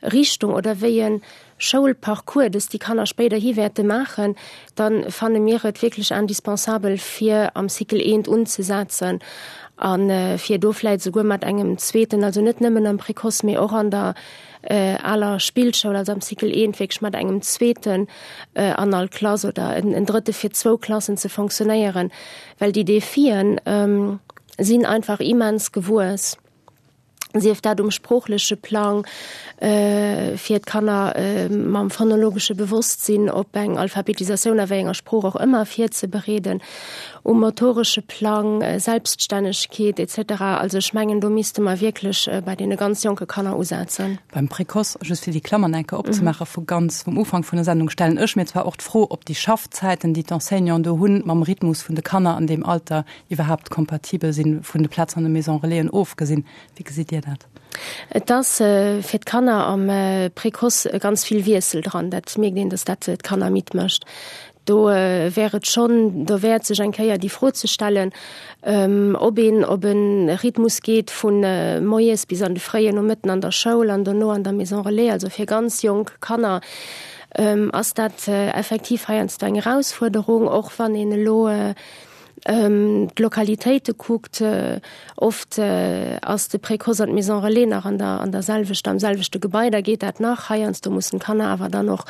S3: Richtung oder wéi e Schoulparcours dass déi Kanner spéiderhi wäerte maachen, da fanne mir et wierklech indispensabel, fir am Cycle eent unzesetzen a fir do vläicht esouguer mat engem zweeten, also net nëmmen am Précoce, mee och an der aler Spillschoul, also am Cycle eent wierklech mat engem zweeten an all Klass oder en drëtte fir zwou Klassen ze fonctionnéieren, well déi Defien sinn einfach immens gewuess. sief dat um sproochleche Plang, fir d'Kanner mam phonologesche Bewosstsinn op eng Alphabetisatioun a wéi enger Sprooch och ëmmer virzebereeden, um motoresche Plang, Selbststännegkeet et cetera. Also ech mengen, do misste mer wierklech bei deene ganz jonke Kanner usetzen.
S1: Beim Précoce, just fir déi Klammern eng Kéier opzemaachen, vu ganz vum Ufank vun der Sendung, stellen ech mir zwar och d'Fro, ob déi Schaffzäiten, déi d'Enseignanten do hunn, mam Rhythmus vun de Kanner an deem Alter iwwerhaapt kompatibel sinn, vun de Plazen an de Maison Relaisen ofgesinn. Wéi gesitt Dir dat?
S3: Et ass fir d'Kanner am Précoce ganz vill Wiessel dran. Dat mierkt een, datt dat d'Kanner midd mécht. Do wär et schonn derwäert, sech eng Kéier déi Fro ze stellen, ob een op e Rhythmus geet vu moies bis an de fréien Nomëtten an der Schoul an dono an der Maison Relais, also fir ganz jonk Kanner ass dat effektiv heiansdo eng Erausfuerderung, och wann een elo d'Lokalitéite kuckt, oft ass de Précoce an d'Maison Relais nach an der an der selwechter, am selwechte Gebai, da geet dat nach. Heiansdo mussen d'Kanner awer dann och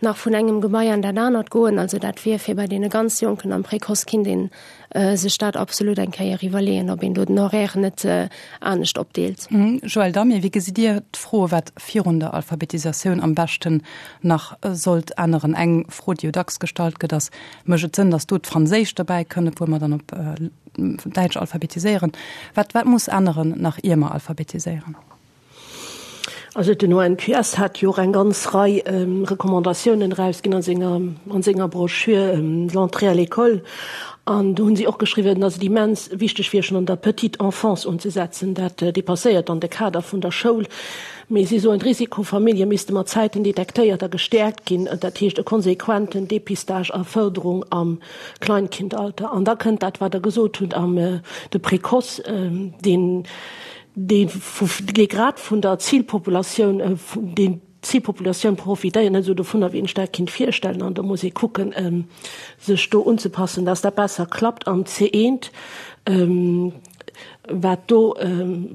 S3: nach vun engem Gebai an dat anert goen. Also dat wier fir bei deene ganz Jonken am Précoce kinnt ee sech dat absolut eng Kéier iwwerleeën, ob een do den Horaire net anescht opdeelt.
S1: Joël Damé, wéi gesitt Dir d'Fro, wat virun der Alphabetisatioun am beschten nach sollt änneren? Eng Fro, déi jo dacks gestallt gëtt, ass, Mécht et Sënn, datt do d'Franséischt dobäi kënnt, obwuel mer dann op Däitsch alphabetiséieren? Wat, wat muss änneren, nach ier mer alphabetiséieren?
S4: Also den ONQS hat jo och eng ganz Rei Recommandatiounen erausginn a senger, an senger Broschür L'entrée à l'école. An do hunn si och geschriwwen, datt et immens wichteg wier, schonn an der petite enfance unzesetzen. Dat dépasséiert dann de Kader vun der Schoul. Mee si soen, d'Risikofamillje misste mat Zäiten detektéiert a gestäerkt ginn, dat heescht e konsequenten Dépistage a Fërderung am Kleinkindalter. An da kënnt dat, wat Der gesot hutt, am de Précoce, deen, dee dee grad vun der Zilpopulatioun, deen d'Zilpopulatioun profitéiert net esou dovunner, wéi een sech dat kinnt virstellen. An do muss ee kucken, sech do unzepassen, dass dat besser klappt am C1. Wat do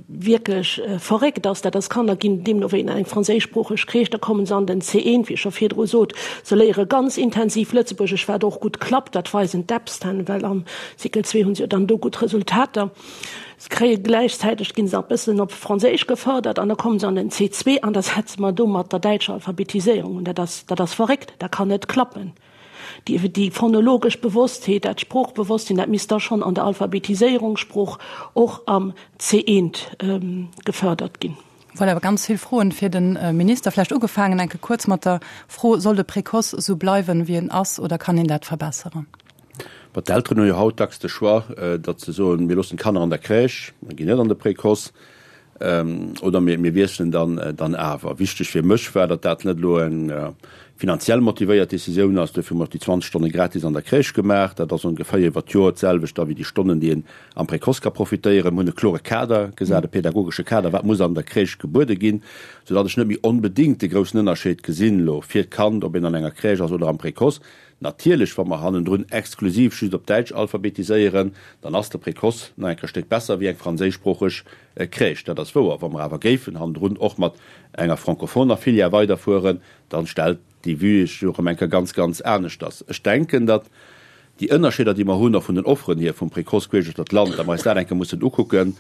S4: wierklech verréckt ass, dat ass, Kanner ginn deemno wéi an eng franséischsproocheg Crèche, da kommen se an den C1, wéi ech scho virdru sot, se léiere ganz intensiv Lëtzebuergesch, wat och gutt klappt, dat weisen d'Epsten, well am Cycle 2 hu se jo dann do gutt Resultater. Se kréie gläichzäiteg, ginn se nach e bëssen op Franséisch gefërdert an da kommen se an den C2 an da setze mer do mat der däitscher Alphabetiséierung un. Dat ass, dat ass verréckt, dat kann net klappen. Déi, déi phonologesch Bewosstheet, dat Sproochbewosstsinn, dat misst da schonn an der Alphabetiséierung, Sprooch och am C1 gefërdert ginn.
S1: Voilà, ganz vill Froen fir de Minister. Vläicht ugefaangen enke kuerz mat der Fro, Soll de Précoce esou bleiwen, wéi en ass, oder kann een dat verbesseren?
S2: Bon, d'Elteren hu jo haut dacks de Choix, datt se soen, mir loossen d'Kanner an der Crèche, mer ginn net an de Précoce, oder mir, mir wiesselen dann, dann awer. Wichteg fir mech war, datt dat net elo eng finanziell motivéiert Decisioun ass. Duerfir hu mer och déi 20 Stonne gratis an der Crèche gemaach. Dat ass ongeféier iwwer d'Joer d'selwecht da wéi déi Stonnen, déi een am Précoce ka profitéieren. Mir hunn e klore Kader gesat, e pädagogesche Kader, wat muss an der Crèche gebuede ginn, soudatt ech net méi onbedéngt de groussen Ënnerscheed gesinn elo fir d'Kand, ob een an enger Crèche ass oder am Précoce. Natierlech, wa mer hannendrun exklusiv just op Däitsch alphabetiséieren, dann ass de Précoce nach eng Kéier Stéck besser wéi eng franséischsproocheg Crèche. Dat ass wouer. Wa mer awer géifen hannendrun och mat enger francophoner Filière weiderfueren, dann stellt déi Vue sech jo erëm eng Kéier ganz, ganz aneschters. Ech denken, datt déi Ënnerscheeder, déi mer hunn, och vun den Offeren hier vum Précoce queesch duerch d'Land, datt mer eis dat eng Kéier mussen ukucken.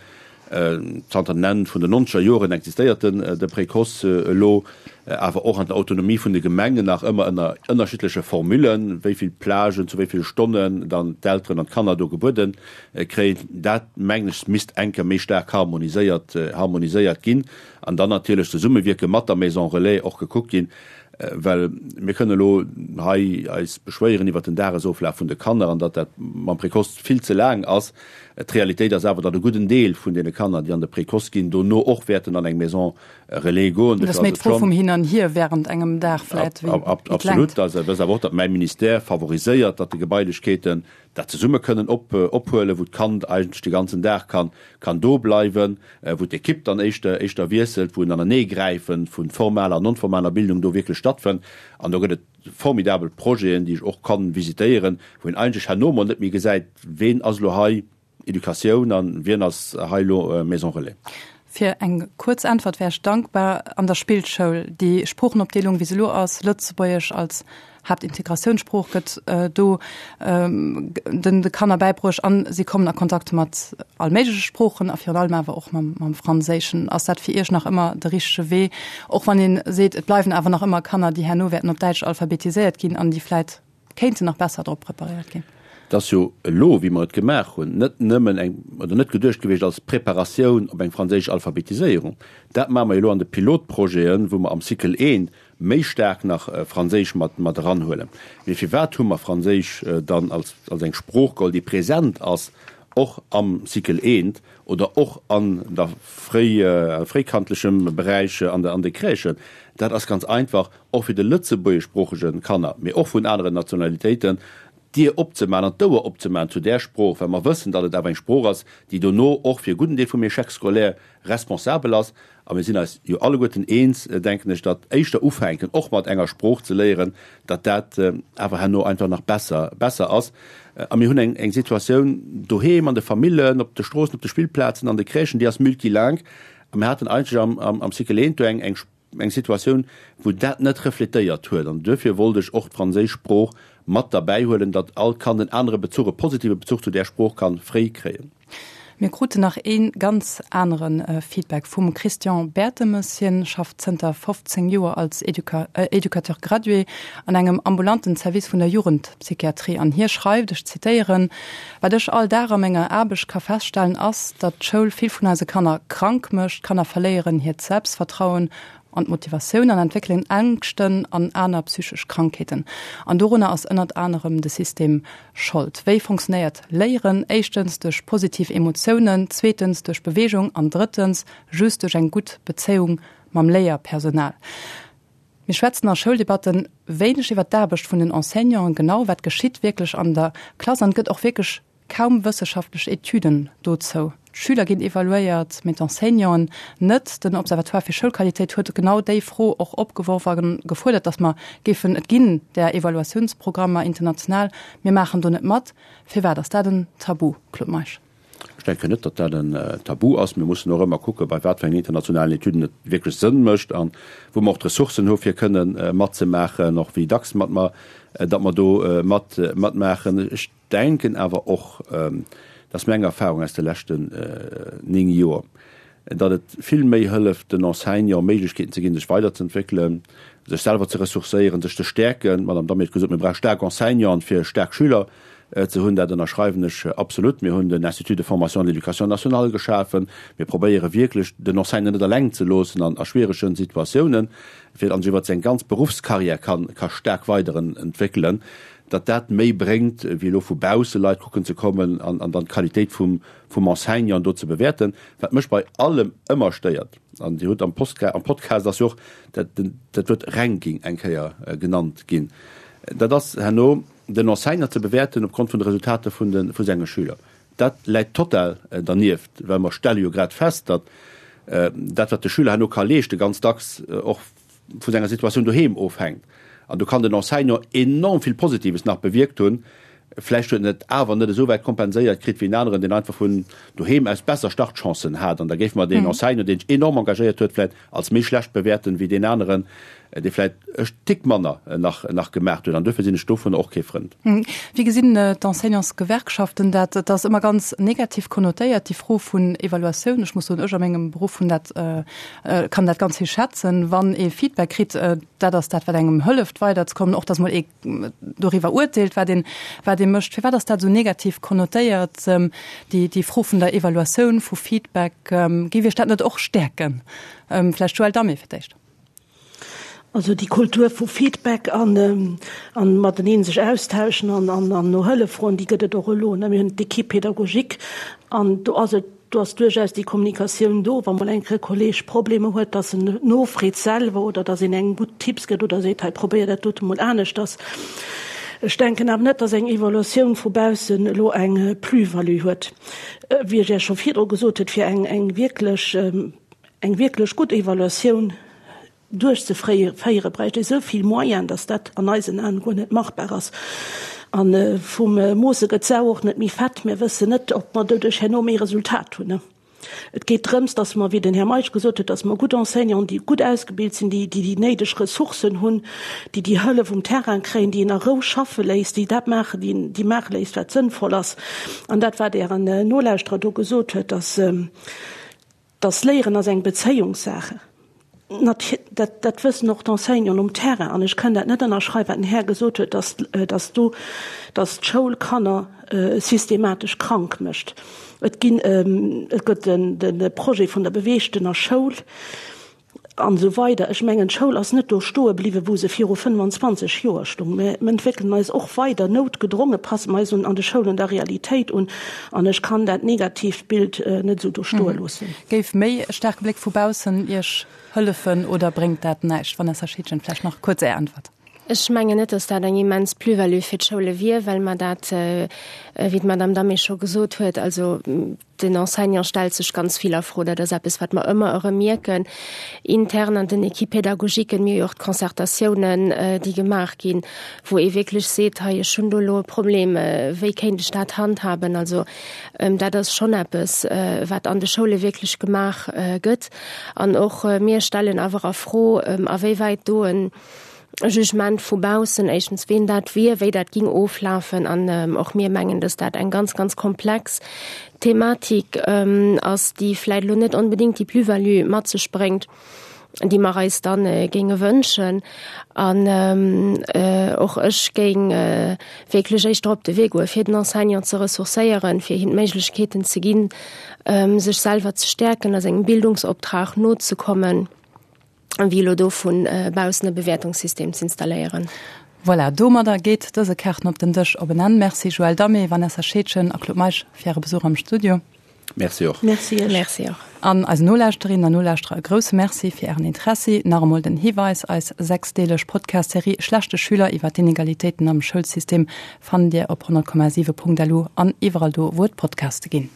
S2: Zanter den Enn vun den nonzeger Joren existéiert den de Précoce elo, awer och an der Autonomie vun de Gemengen nach ëmmer ënner ënnerschiddleche Formullen, wéi vill Plagen zu wéi ville Stonnen dann d'Elteren an d'Kanner do gebuede kréien. Dat, mengen ech, misst eng Kéier méi staark harmoniséiert harmoniséiert ginn an dann natierlech zesummewierke mat der Maison Relais och gekuckt ginn, well mir kënnen elo hei eis beschwéieren iwwert den Dagesoflaf vun de Kanner an datt dat mam Précoce vill ze laang ass. D'Realitéit ass awer, datt e gudden Deel vun deene Kanner, déi an de Précoce ginn, dono och wäerten an eng Maison Relais goen.
S1: Dat ass méi d'Fro vum Hin an Hier während engem Dag vläit wéi d'Längt.
S2: Absolut. Also et ass awer och, datt mäi Ministère favoriséiert, datt de Gebailechkeeten dat zesumme kënnen ophuelen, wou d'Kand eigentlech de ganzen Dag kann kann do bleiwen, wou d'Ekipp dann éischter éischter wiesselt, wou en Aneneegräife vu formaler an non-formaler Bildung do wierklech stattfënnt. An do gëtt et formidabel Projeten, déi ech och kann visitéieren, wou een eigentlech herno mol net méi gesäit, ween ass elo hei Educatioun an wien ass hei elo Maison Relais.
S1: Fir eng kuerz Äntwert wär ech dankbar. An der Spillschoul, déi Sproochenopdeelung, wéi se elo ass, Lëtzebuergesch als Haaptintegratiounssprooch gëtt do den de Kanner bäibruecht an si kommen a Kontakt mat all méigleche Sproochen a virun allem awer och mam mam Franséischen. Ass dat fir Iech nach ëmmer de richtege Wee, och wann ee seet, et bleiwen awer nach ëmmer Kanner, déi herno wäerten op Däitsch alphabetiséiert ginn an déi vläit kéinten nach besser drop preparéiert ginn?
S2: Et ass jo elo, wéi mer et gemaach hunn, net nëmmen eng, oder net geduecht gewiescht als Preparatioun op eng franséisch Alphabetiséierung. Dat maache mer jo elo an de Pilotprojeten, wou mer am Cycle I méi staark nach Franséisch mat mat eranhuelen. Mee firwat hu mer Franséisch dann als als eng Sprooch geholl, déi present ass och am Cycle I oder och an der fréi fréikandlechem Beräich an de an de Crèchen? Dat ass ganz einfach och fir de lëtzebuergeschsproochege Kanner, mee och vun aneren Nationalitéiten, d'Dier opzemaachen an d'Ouer opzemaachen zu där Sprooch, well mer wëssen, datt et awer eng Sprooch ass, déi dono och fir e gudden Deel vum Échec scolaire responsabel ass. A mir sinn eis jo alleguerten eens, denken ech, datt éischter ufänken, och mat enger Sprooch ze léieren, datt dat awer herno einfach nach besser, besser ass. A mir hunn eng, eng Situatioun doheem, an de Famillen, op de Stroossen, op de Spillplazen, an de Crèchen, déi ass multilingue. A mir haten eigentlech am, am, am Cycle eent do eng, eng, eng Situatioun, wou dat net refletéiert huet. An duerfir wollt ech och d'franséisch Sprooch mat derbäihuelen, datt all Kand en anere Bezuch, e positive Bezuch zu där Sprooch ka fréi kréien.
S1: Mir kruten nach ee ganz anere Feedback vum Christian Bertemes. Hien schafft zënter 15 Joer als Educateur gradué an engem ambulanten Service vun der Jugendpsychiatrie an hie schreift, ech zitéieren, Wat ech all Dag a menger Aarbecht ka feststellen ass, datt d'Schoul vill vun eise Kanner krank mécht. D'Kanner verléieren hiert Selbstvertrauen. an d'Motivatioun an entwéckelen Ängschten an aner psychesch Krankheeten. An dorunner ass ënnert anerem de System Schold. Wéi funktionéiert Léieren? Éischtens duerch positiv Emotiounen, zweetens duerch Beweegung an drëttens just duerch eng gutt Bezéiung mam Léierpersonal. Mir schwätzen a Schouldebatten wéineg iwwer d'Aarbecht vun den Enseignanten, genau wat geschitt wierklech an der Klass an et gëtt och wierklech kaum wësseschaftlech Etüden dozou. D'Schüler ginn evaluéiert, mee d'Enseignanten net. Den Observatoire fir Schoulqualitéit huet genau déi Fro och opgeworf a gefuerdert, datt mer géifen, et ginn där Evaluatiounsprogrammer international, mir maachen do net mat. Firwat ass dat en Tabu, Claude Meisch?
S2: Ech denken net, datt dat en Tabu ass. Mir mussen och ëmmer kucken, bei wat fir engen internationalen Etüden et wierklech Sënn mécht a wou mer och d'Ressourcen hu fir kënnen matzemaachen, och wéi dacks mat mer, datt mer do mat matmaachen. Ech denken awer och, dat ass meng Erfahrung aus de leschten 9 Joer, datt et vill méi hëlleft, den Enseignant Méiglechkeeten ze ginn, sech weiderzeentwéckelen, sech selwer ze ressourcéieren, sech ze stäerken. D'Madame Damé huet gesot, mir brauche staark Enseignanten, fir staark Schüler ze hunn. Dat ënnerschreiwen ech absolut. Mir hunn den Institut de formation de l'éducation nationale geschafen. Mir probéiere wierklech, den Enseignant net eleng ze loossen an a schwieregen Situatiounen, fir datt en sech iwwert seng ganz Beruffscarrière ka staark weiderentwéckelen, datt dat méi bréngt, wéi elo vu bausse Leit kucken ze kommen an dann d'Qualitéit vum Enseignant do ze bewäerten. Wat mech bei allem ëmmer stéiert, an Dir hutt am Podcast ass jo och dat Wuert Ranking eng Kéier genannt ginn, dat ass herno den Enseignant ze bewäerten opgrond vun de Resultater vu senge Schüler. Dat läit total dernieft, well mer stelle jo grad fest, datt dat, wat de Schüler herno ka leeschten, ganz dacks och vu senger Situatioun doheem ofhänkt. An do kann den Enseignant enorm vill Positives nach bewierkt hunn. Vläicht huet en et awer net esou wäit kompenséiert kritt wéi en aneren, deen einfach vun doheem aus besser Startchancen hat. An da géife mer deen Enseignant, deen sech enorm engagéiert huet, vläicht als méi schlecht bewäerten, wéi deen aneren, dee vläicht e Tick manner nach nach gemaach huet. An duerfir sinn ech dovunner och kee Frënd.
S1: Wéi gesinn d'Enseignantsgewerkschaften dat? Et ass ëmmer ganz negativ konnotéiert, déi Fro vun Evaluatioun. Ech muss soen, ech a mengem Beruff hunn dat, kann dat ganz vill schätzen, wann ee Feedback kritt. Dat ass dat, wat engem hëlleft weiderzekommen, och datt mol ee doriwwer urteelt, wat een, wat ee mécht. Firwat ass dat esou negativ konnotéiert, déi, déi Fro vun der Evaluatioun, vu Feedback? Géif Iech dat net och stäerken? Vläicht Joëlle Damé fir d'éischt.
S4: Also déi Kultur vu Feedback an an mateneen sech austauschen an an an no Hëllef froen, déi gëtt et och elo. Mir hunn d'Équipe pédagogique an do ass et, do ass duerchaus déi Kommunikatioun do, wa mol eng Kéier e Kolleg Problemer huet, dass en nofreet selwer oder dass een engem gutt Tipps gëtt oder seet, hei probéier dat dote mol aneschters. Ech denken awer net, dass eng Evaluatioun vu baussen elo eng Plus-value huet. Wéi ech Iech scho virdru gesot huet, fir eng eng wierklech Eng wierklech gutt Evaluatioun duerchzeféiere bräicht ee sou vill Moyen, datt dat an eisen Aen guer net machbar ass. A vum Moosse gëtt d'Sau och net méi fett. Mir wëssen net, ob mer doduerch herno méi Resultat hunn. Et geet drëms, datt mer, wéi den Här Meisch gesot huet, datt mer gutt Enseignanten, déi gutt ausgebilt sinn, déi déi néideg Ressourcen hunn, déi déi Hëllef um Terrain kréien, déi een a Rou schaffe léisst, déi dat maachen, déi maache léisst, wat sënnvoll ass. An dat, wat Ären Nolauschterer do gesot huet, datt, Dass Léieren ass eng Bezéiungssache. Dat, dat wëssen och d'Enseignanten um Terrain. An ech kënn dat net ënnerschreiwen, wat den Här gesot huet, dass, dass do, dass d'Schoul Kanner systematesch krank mécht. Et ginn, et gëtt den, de Projet vun der beweegtener Schoul. An esou weider. Ech mengen, d'Schoul ass net do stoe bliwwen, wou se viru 25 Joer stung. Mir entwéckelen eis och weider, noutgedronge passe mer eis un an de Schoulen der Realitéit un. An ech kann dat negatiivt Bild net esou do stoe loossen.
S1: Géif méi e staarke Bléck vu baussen Iech hëllefen oder bréngt dat näischt? Vanessa Schiedgen, vläicht nach kuerz Är Äntwert.
S3: Ech mengen net, dass dat eng immens Plus-value fir d'Schoule wier, well mer dat, wéi d'Madame Damé scho gesot huet, also Den Enseignant stellt sech ganz vill a Fro. Dat ass eppes, wat mer ëmmer erëm mierken, intern an den Équipe-pédagogiquen. Mir hu jo och d'Concertatiounen, déi gemaach ginn, wou ee wierklech seet, hei, ech hunn do elo e Problem, wéi kéint ech dat handhaben? Also dat ass schonn eppes, wat an de Schoule wierklech gemaach gëtt. An och mir stellen awer a Fro, awéiwäit do en Jugement vu baussen, éischtens ween dat wier, wéi dat ging oflafen an och mir mengen, dass dat eng ganz, ganz komplex Thematik ass, déi vläit elo net onbedéngt déi Plus-value mat sech bréngt, déi mer eis dann géinge wënschen. An och ech géing wierklech éischter op de Wee goe fir den Enseignant ze ressourcéieren, fir him d'Méiglechkeeten ze ginn, sech selwer ze stäerken a sengem Bildungsoptrag nozekommen. Wéi elo do vu baussen e Bewäertungssystem z'installéieren.
S1: Voilà, domadder geet dëse Kaarten op den Dësch op en Enn. Merci Joël Damé, Vanessa Scheedgen a Claude Meisch fir Äre Besuch am Studio.
S2: Merci och.
S4: Merci Iech.
S3: Merci och.
S1: An eisen Nolauschterinnen an Nolauschterer e grousse Merci fir Ären Interessi. Nach emol den Hiweis, Eis sechsdeeleg Podcast-Serie Schlechte Schüler iwwer d'Inegalitéiten am Schoulsystem fannt Dir op 100,7.lu an iwwerall do, wou et Podcaste ginn.